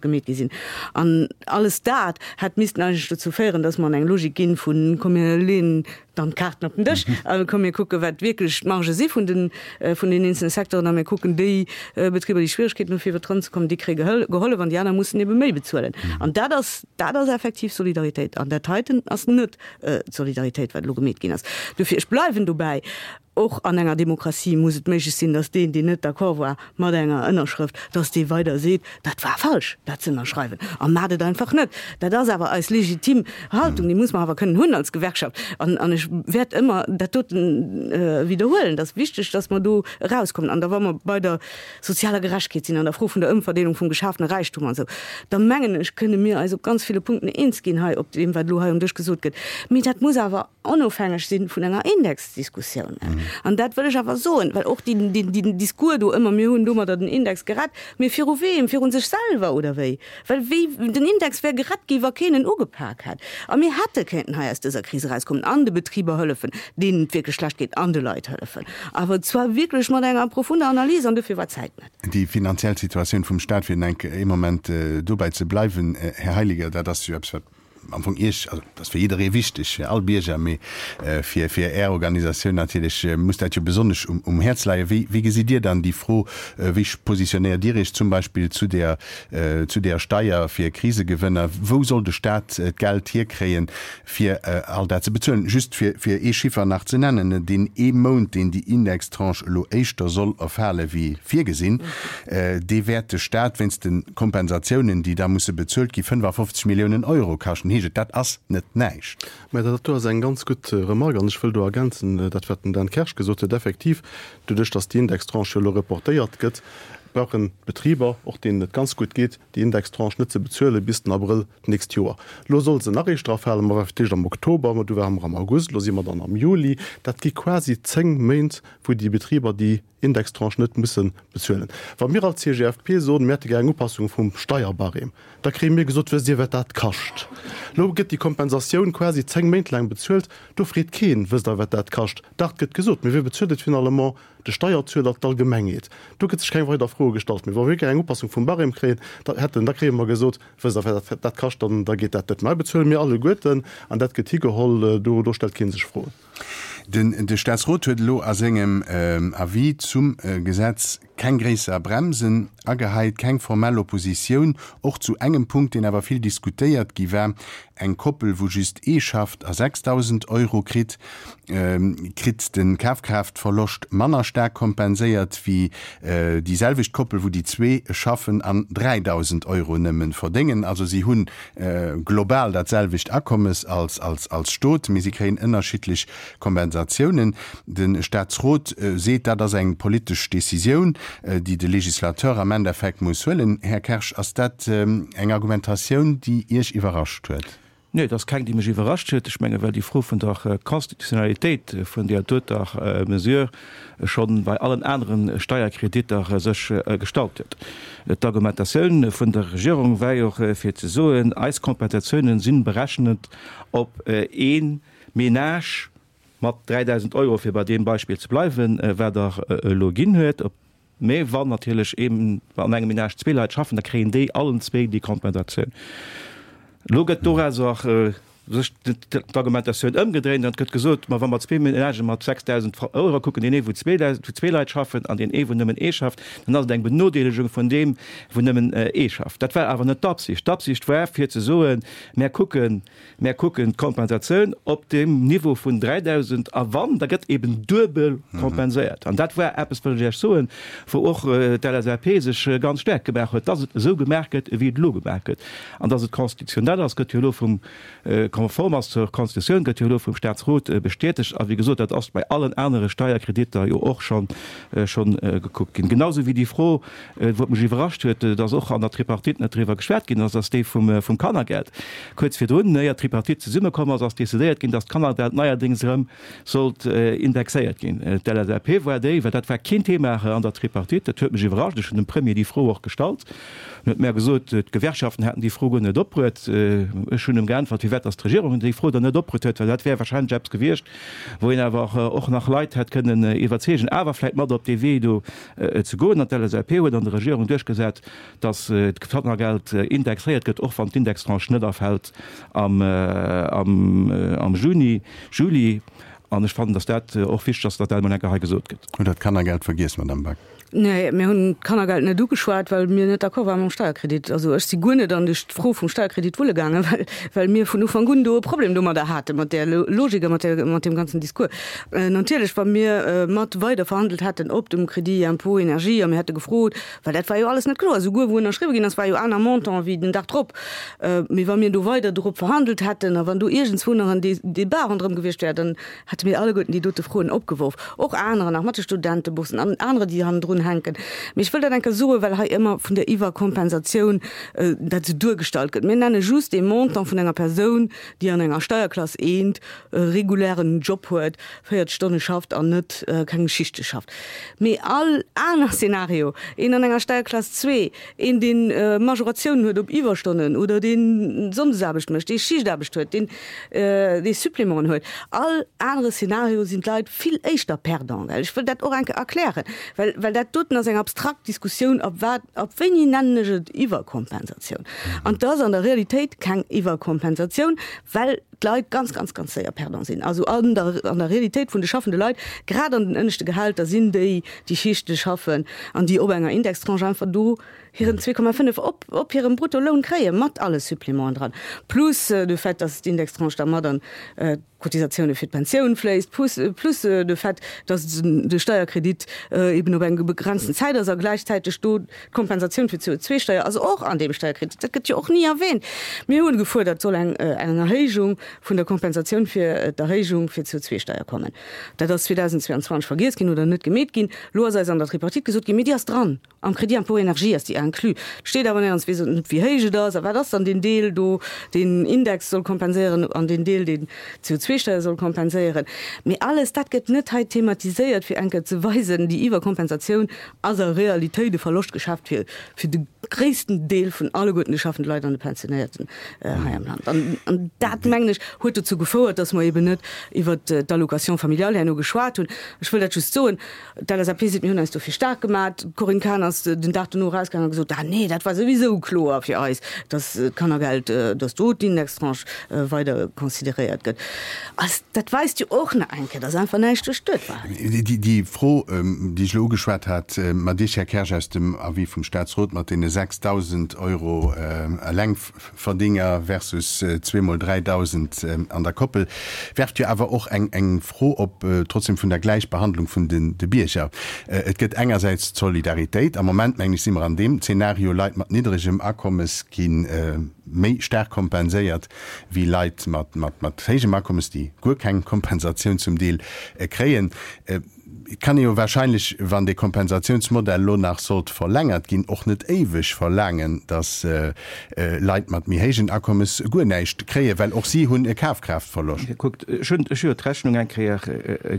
gemeet gi sinn. An alles dat hätt missten eigentlech dozou féieren, dass mer an eng Logik ginn vu komm mir leeën dann d'Kaarten op den Dësch a komm mir kucken, wat wierklech d'Margë si vun den vun den eenzelne Secteuren a mir kucken déi Betriber, déi Schwieregkeeten hu fir iwwert d'Ronn ze kommen, déi kréie gehollef an déi aner mussen ebe méi bezuelen. An dat ass, dat ass effektiv Solidaritéit an dat heiten ass net d'Solidaritéit, wat elo gemeet ginn ass. Dofir, ech bleiwen dobäi, och an enger Demokratie muss et méiglech sinn, datt deen, deen net d'accord war mat enger Ënnerschrëft, datt dee weider seet, dat war falsch, dat ze ënnerschreiwen, a maacht et einfach net. Dat ass awer eis legitim Haltung, déi muss mer awer kënnen hunn als Gewerkschaft. An ech wäert ëmmer dat doten widderhuelen. Et ass wichteg, datt mer do erauskommen. An da wa mer bei der sozialer Gerechtegkeet sinn, an der Fro vun der Ëmverdeelung vum geschafene Räichtum an esou, da mengen ech, kënne mir eis op ganz ville Punkten eens ginn hei op deem, wat elo hei um Dësch gesot gëtt. Mee dat muss awer onofhängeg si vun enger Indexdiskussioun. An dat wëll ech awer soen, well och deen Discours do ëmmer, mir hunn domadder den Index gerett, mee viru weem? Viru sech selwer oder wéi? Well wéi, den Index wär gerett gi wa keen en ugepak hätt. A mir hätte kéinten hei aus dëser Kris erauskommen an de Betriber hëllefen, deenen et wierklech schlecht geet, an de Leit hëllefen. Awer zwar wierklech mat enger profunder Analys, an dofir war d'Zäit net. Déi finanziell Situatioun vum Stat, fir enk ee Moment dobäi ze bleiwen, Här Heiliger, dat ass jo eppes, wat am Fong Iech, also dat ass fir jidderee wichteg, fir all Bierger, mee fir fir Är Organisatioun natierlech muss dat jo besonnesch um um Häerz leien. Wéi wéi gesitt Dir dann déi Fro? Wéi positionéiert Dir Iech zum Beispill zu där zu där Steier fir Krisegewënner? Wou soll de Staat d'Geld hierkréien, fir all dat ze bezuelen? Just fir fir ee Chiffer nach ze nennen, Deen ee Mount, deen déi Indextranche elo éischter soll erfale wéi virgesinn, dee wäert de Staat wéinst de Kompensatiounen, déi da musse bezuelt gi, 55 Milliounen Euro kaschten, heescht et. Dat ass net näischt. Mä dat do ass eng ganz gutt Remarque an ech wëll do ergänzen dat, wat den Dan Kersch gesot huet. Effektiv, doduerch datt déi Indextranche jo elo reportéiert gëtt, brauchen d'Betriber, och deenen et ganz gutt geet, déi Indextranche net ze bezuele bis den Abrëll d'nächst Joer. Elo soll se nach éischter erfalen, ma war fir d'éischt am Oktober, ma du ware mer am August, elo si mer dann am Juli. Dat gi quasi 10 Méint, wou déi Betriber déi Indextranche net musse bezuelen. Wa mir als CGFP soen, mir hätte gär eng Upassung vum Steierbarème, da kréie mir gesot, wësst Dir wat dat kascht? Elo gëtt déi Kompensatioun quasi 10 Méint laang bezuelt, do freet keen, wësst Der wat dat kascht? Dach, et gëtt gesot, mee wie bezuelt et finalement? De Steierzueler, d'Allgemengheet. Do gëtt sech keng weider Froe gestallt. Mee wa mir gär eng Upassung vum Barème kréien, da hätten, da kréie mer gesot, wësst Der wat dat kascht? Dann da geet dat net. Mä bezuele mir alleguerten an dat gëtt higeholl, do do stellt kee sech Froen. Den de Staatsrot huet elo a sengem Avis zum Gesetz keng gréisser Bremsen agehäit, keng formell Oppositioun, och zu engem Punkt, deen awer vill diskutéiert gi war, Eng Koppel, wou just ee schafft a 6.000 Euro kritt, kritt de Kafkraaftverloscht manner staark kompenséiert wéi déi selwecht Koppel, wou déi zwee schaffen an 3.000 Euro nëmme verdéngen. Also si hunn global dat selwecht Akommes als als Stot, mee si kréien ënnerschiddlech Kompensatiounen. De Staatsrot seet, dat ass eng politesch Decisioun, déi de Législateur am Endeffekt muss huelen. Här Kersch, ass dat eng Argumentatioun, déi Iech iwwerrascht huet? Nee, et ass keng, déi mech iwwerrascht huet. Ech menge well déi Fro vun der Constitutionnalitéit vun deer doter Mesure scho bei allen anere Steierkreditter sech gestallt huet. D'Argumentatioun vun der Regierung war jo och fir ze soen, eis Kompensatiounen si berechnet op ee Ménage mat 3.000 Euro, fir bei deem Beispill ze bleiwen, wat Der elo ginn huet. Mä wann natierlech een an engem Ménage zwee Leit schaffen, da kréien déi allen zwee déi Kompensatioun. Elo gëtt dorauser. sech d'Argumentatioun ëmgedréint an et gëtt gesot, ma wa mer zwee Ménagë mat 6.000 Euro kucken, deen ee wou zwee Leit schaffen an deen ee wou nëmmen ee schafft, dann ass et eng Benodeelegung vun deem wou nëmmen ee schafft. Dat war awer net d'Absicht. D'Absicht war fir ze soen, mär kucken, mär kucken d'Kompensatioun op deem Niveau vun 3.000 a wann, da gëtt eben duebel kompenséiert. An dat war eppes, wëll ech Iech soen, wou och d'LSAP sech ganz staark gemaach huet, dass et esou gemaach gëtt, wéi et elo gemaach gëtt. An dass et constitutionnel ass, gëtt jo elo vum, konform ass zur Constitutioun, gëtt jo elo vum Statsrot bestätegt. A wéi gesot, dat ass bei allen anere Steierkreditter jo och schonn, schonn gekuckt ginn. Genausou wéi déi Fro, wou et mech iwwerrascht huet, dass och an der Tripartite net driwwer geschwat ginn ass, ass déi vum, vum Kannergeld. Kuerz virdrun, éier d'Tripartite zesummekomm ass, ass decidéiert ginn, dass d'Kannergeld neierdéngs erëm sollt indexéiert ginn. D'LSAP war déi, well dat war keen Thema an der Tripartite, dat huet mech iwwerrascht, ech hunn dem Premier déi Fro och gestallt, en huet mär gesot, d'Gewerkschaften hätten déi Fro guer net opbruet. Ech hunn em geäntwert, firwat datt d'Regierung déi Fro dann net opbruet huet, well dat wär wahrscheinlech eppes gewiescht, wou een awer och nach Leit hätt kënnen iwwerzeegen, awer vläicht mat op dee Wee do ze goen. An d'LSAP huet an der Regierung duerchgesat, datt d'Kannergeld indexéiert gëtt, och wann d'Indextranche net erfält am Juni, Juli. An ech fannen, datt dat och wichteg ass, datt dat emol eng Kéier hei gesot gëtt. Hutt Der d'Kannergeld vergiess, Madamm Back? Nee, mir hunn d'Kannergeld net ugeschwat, well mir net d'accord ware mam Steierkredit. Also ech si guer net an déi Fro vum Steierkredit wulle gaangen, well, well mir vun Ufank un do e Problem domadder haten, mat där Logik a mat där, mat deem ganzen Discours. Natierlech, wa mir mat weider verhandelt hätten op dem Crédit impôt énergie a mir hätte gefrot, Well dat war jo alles net kloer. Souguer wou ënnerschriwwe ginn ass, war jo aner Montant wéi den Dag drop. Mee wa mir do weider dorop verhandelt hätten a wann do iergendswou nach en Débat ronderëm gewiescht wär, dann hätte mir alleguerten déi dote Froen opgeworf. Och anerer nach, mat de Studenteboursen an anerer, déi hannendrun hänken. Mee ech wëll dat eng Kéier soen, well hei ëmmer vun der Iwwerkompensatioun dat esou duergestallt gëtt. Mir nenne just ee Montant vun enger Persoun, déi an enger Steierklass eent e regulären Job huet, 40 Stonne schafft an net keng Schichte schafft. Mee all aner Szenario, een an enger Steierklass 2, een deen Majoratiounen huet op Iwwerstonnen oder deen Sonndesaarbecht mécht, dee Schichtaarbecht huet, deen dee Supplémenten huet, all anere Szenario sinn d'Leit vill éischter perdant. Well ech wëll dat och eng Kéier erklären, well well dat doten ass eng abstrakt Diskussioun, ab wat, ab wéini nennen ech et Iwwerkompensatioun? An et ass an der Realitéit keng Iwwerkompensatioun, well d'Leit ganz, ganz, ganz séier perdant sinn. Also an der, an der Realitéit vun de schaffende Leit, grad an den ënneschte Gehälter, sinn déi, déi Schichte schaffen an déi op enger Indextranche einfach do hiren 2,5 op, op hirem Bruttoloun kréien, mat alle Supplémenten dran, plus de Fait, dass d'Indextranche da mat an d'Cotisatioune fir d'Pensioun fléisst, plus, plus de Fait, dass de Steierkredit eben op eng begrenzten Zäit ass a gläichzäiteg do D'Kompensatioun fir d'CO2-Steier ass och an deem Steierkredit. Dat gëtt jo och ni erwähnt. Mir hunn gefuerdert, et soll eng Erhéijung vun der Kompensatioun fir d'Erhéijung fir d'CO2-Steier kommen. Dat ass 2022 vergiess ginn oder net gemeet ginn. Elo ass eis an der Tripartite gesot ginn, mee déi ass dran, am Crédit impôt énergie ass déi inclus. Et steet awer néierens, weess net wéi héich et ass a wat ass dann deen Deel do, deen Index soll kompenséieren an deen Deel, deen d'CO2-Steier soll kompenséieren. Mee alles dat gëtt net hei thematiséiert, fir eng Kéier ze weisen, déi Iwwerkompensatioun ass a Realitéit e Verloschtgeschäft fir fir de gréissten Deel vun alleguerten de schaffende Leit an de Pensionéierten hei am Land. An an dat, mengen ech, huet dozou gefouert, dass mer eben net iwwert d'Allocation familiale herno geschwat hunn. Ech wëll dat just soen, d'LSAP seet, mir hunn eis dofir staark gemat. D'Corinne Cahen ass den Dag dono erausgaangen a gesot, ah nee, dat war souwisou kloer fir eis, dass d'Kannergeld, dass do d'Indextranche weider consideréiert gëtt. Als dat weist jo och nach eng Kéier, dass einfach näischt duerchduet war. Déi Fro, déi ech elo ugeschwat hat mat Iech, Här Kersch, aus dem Avis vum Statsrot mat deene 6.000 Euro Elengverdinger versus zweemol 3.000 an der Koppel, werft jo awer och eng Fro op, trotzdem vun der Gläichbehandlung vun de Bierger. Et gëtt engersäits d'Solidaritéit. Am Moment, mengen ech, si mer an deem Zeenario, Leit mat niddregem Akommes gi méi staark kompenséiert wéi Leit mat héijem Akommes, déi guer keng Kompensatioun zum Deel kréien. Et kann ee jo wahrscheinlech, wann dee Kompensatiounsmodell elo nach sollt verlängert ginn, och net éiweg verlaangen, datt Leit mat méi héijen Akommes guer näischt kréien, well och si hunn e Kafkraaftverloscht. Kuckt, ech hunn ech hu jo d'Rechnung eng Kéier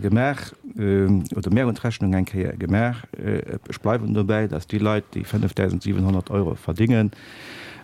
gemaach, oder mär hunn d'Rechnung eng Kéier gemaach, ech bleiwen dobäi, datt déi Leit, déi 5.700 Euro verdingen,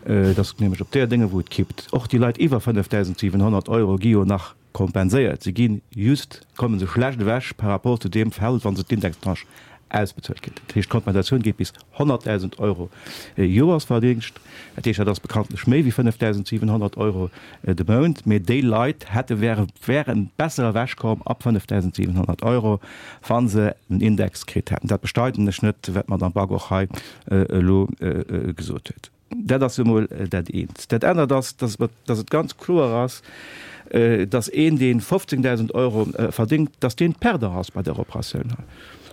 Et ass nämlech op där Dénge wou et kippt. Och déi Leit iwwer 5.700 Euro gi jo nach kompenséiert. Si gi just, komme se schlecht ewech par rapport zu deem Feld, wa se d'Indextranche. ausbezuelt ginn. Dat heescht, d'Kompensatioun geet bis 100.000 Euro Joersverdingscht. Dat heescht, dat ass bekanntlech méi wéi 5.700 Euro de Mount. Mee déi Leit hätte, wäre, wäre besser ewechkomm ab 5.700 Euro, wa se en Index kritt hätten. Dat bestreiden ech net, wat d'Madame Back och hei elo gesot huet. Dat ass emol dat eent. Dat anert ass, dass dass et ganz kloer ass, dass een, dee 15.000 Euro verdéngt, dass deen Perdant ass bei där Operatioun hei.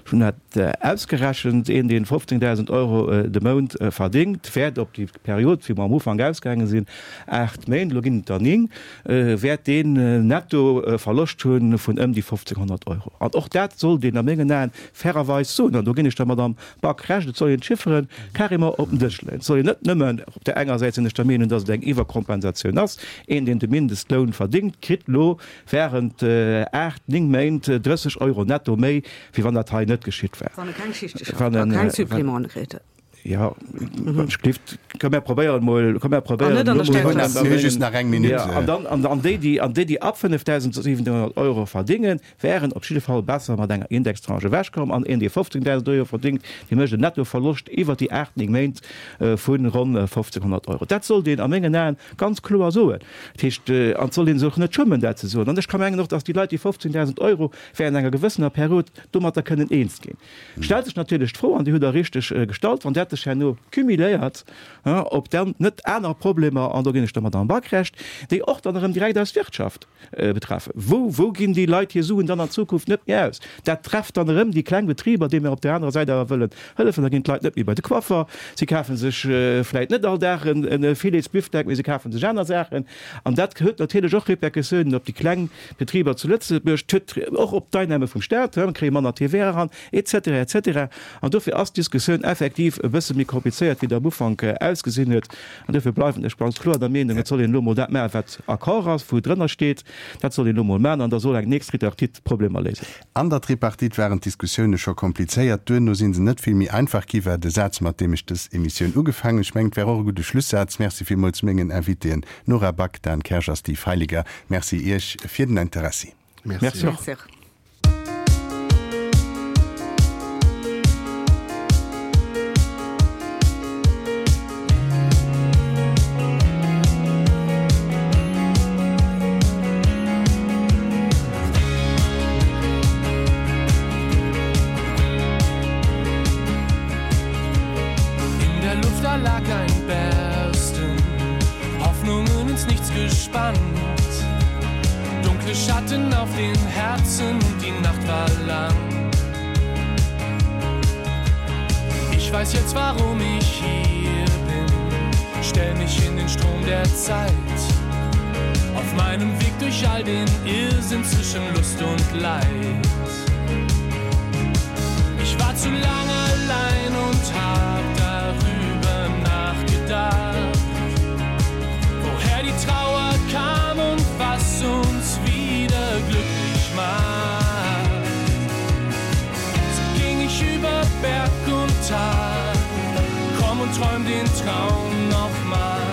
Ech hunn dat ausgerechent, Een, dee 15.000 Euro de Mount verdéngt, wäert op déi Period, wéi mer am Ufank ausgaange sinn, aacht Méint, elo ginn et der ning, wäert deen netto e Verloscht hu vun ëm déi 1.500 Euro. An och dat sollt een a mengen Aen fairerweis soen. An do ginn ech der Madamm Back Recht, et soll een d'Chiffere carrément op den Dësch leeën. Et soll een net nëmmen, op där enger Säit sinn ech der Meenung, datt et eng Iwwerkompensatioun ass, een deen de Mindestloun verdéngt, kritt elo während 8, 9 Méint 30 Euro netto méi, wéi wann dat hei net geschitt wär. Wann e keng Schichte schafft a keng Supplémenten kritt huet. Jo, ech gleeft, komm mär probéieren emol, komm mär probéieren elo mol. Mir hu just nach eng Minutt. An dann, an déi, déi, an déi, déi ab 5.700 Euro verdéngen, wären op jidde Fall besser mat enger Indextranche ewechkomm an een, dee 15.000 Euro verdéngt, dee mécht en Nettoverloscht iwwert déi 8, 9 Méint vu ronn 1.500 Euro. Dat sollt een a mengen Aen ganz kloer soen. Dat heescht, an et sollt ee sech och net schummen, dat ze soen. An ech ka mengen och, datt déi Leit, déi 15.000 Euro während enger gewëssener Period domatter kënnen eens ginn. Stellt sech natierlech d'Fro, an déi hutt Der richteg gestallt, wann dat sech herno cumuléiert, ob dann net aner Problemer, an do ginn ech der Madamm Back Recht, déi och dann erëm direkt eis Wirtschaft betreffen. Wou, wou ginn déi Leit hir Suen dann an Zukunft net méi aus? Dat trefft dann erëm déi kleng Betriber, deene mir op där anerer Säit awer wëllen hëllefen. Da ginn d'Leit net méi bei de Coiffer, si kafe sech vläit net all Dag e Filetsbifdeck, mee se kafe sech aner Saachen. An dat huet natierlech och Répercussiounen op déi kleng Betriber zu Lëtzebuerg, et huet och op d'Einnahme vum Staat, mir kréie manner TVA eran, et cetera, et cetera. An dofir ass d'Diskussioun effektiv e bësse méi komplizéiert, wéi et am Ufank ausgesinn huet. An dofir bleiwen ech ganz kloer der Meenung, et soll een elo emol dat maachen, wat Accord ass, wou drënner steet. Dat soll een elo emol maachen an da soll eng nächst Tripartite d'Problemer léisen. An der Tripartite waren d'Diskussioune scho komplizéiert, duerno si se net vill méi einfach gi, war de Saz, mat deem ech dës Emissioun ugefaangen hunn. Ech mengen, et war och e gudde Schlussaz. Merci villmools mengen Invitéen Nora Back, Dan Kersch a Steve Heiliger. Merci Iech fir den Interessi. Merci och. In der Luft da lag ein Bersten, Hoffnungen ins Nichts gespannt. Dunkle Schatten auf den Herzen und die Nacht war lang. Ich weiß jetzt, warum ich hier bin. Stell mich in den Strom der Zeit. Auf meinem Weg durch all den Irrsinn zwischen Lust und Leid. Ich war zu lange allein und hab darüber nachgedacht, woher die Trauer kam und was uns wieder glücklich macht. So ging ich über Berg und Tal, komm und träum den Traum noch mal.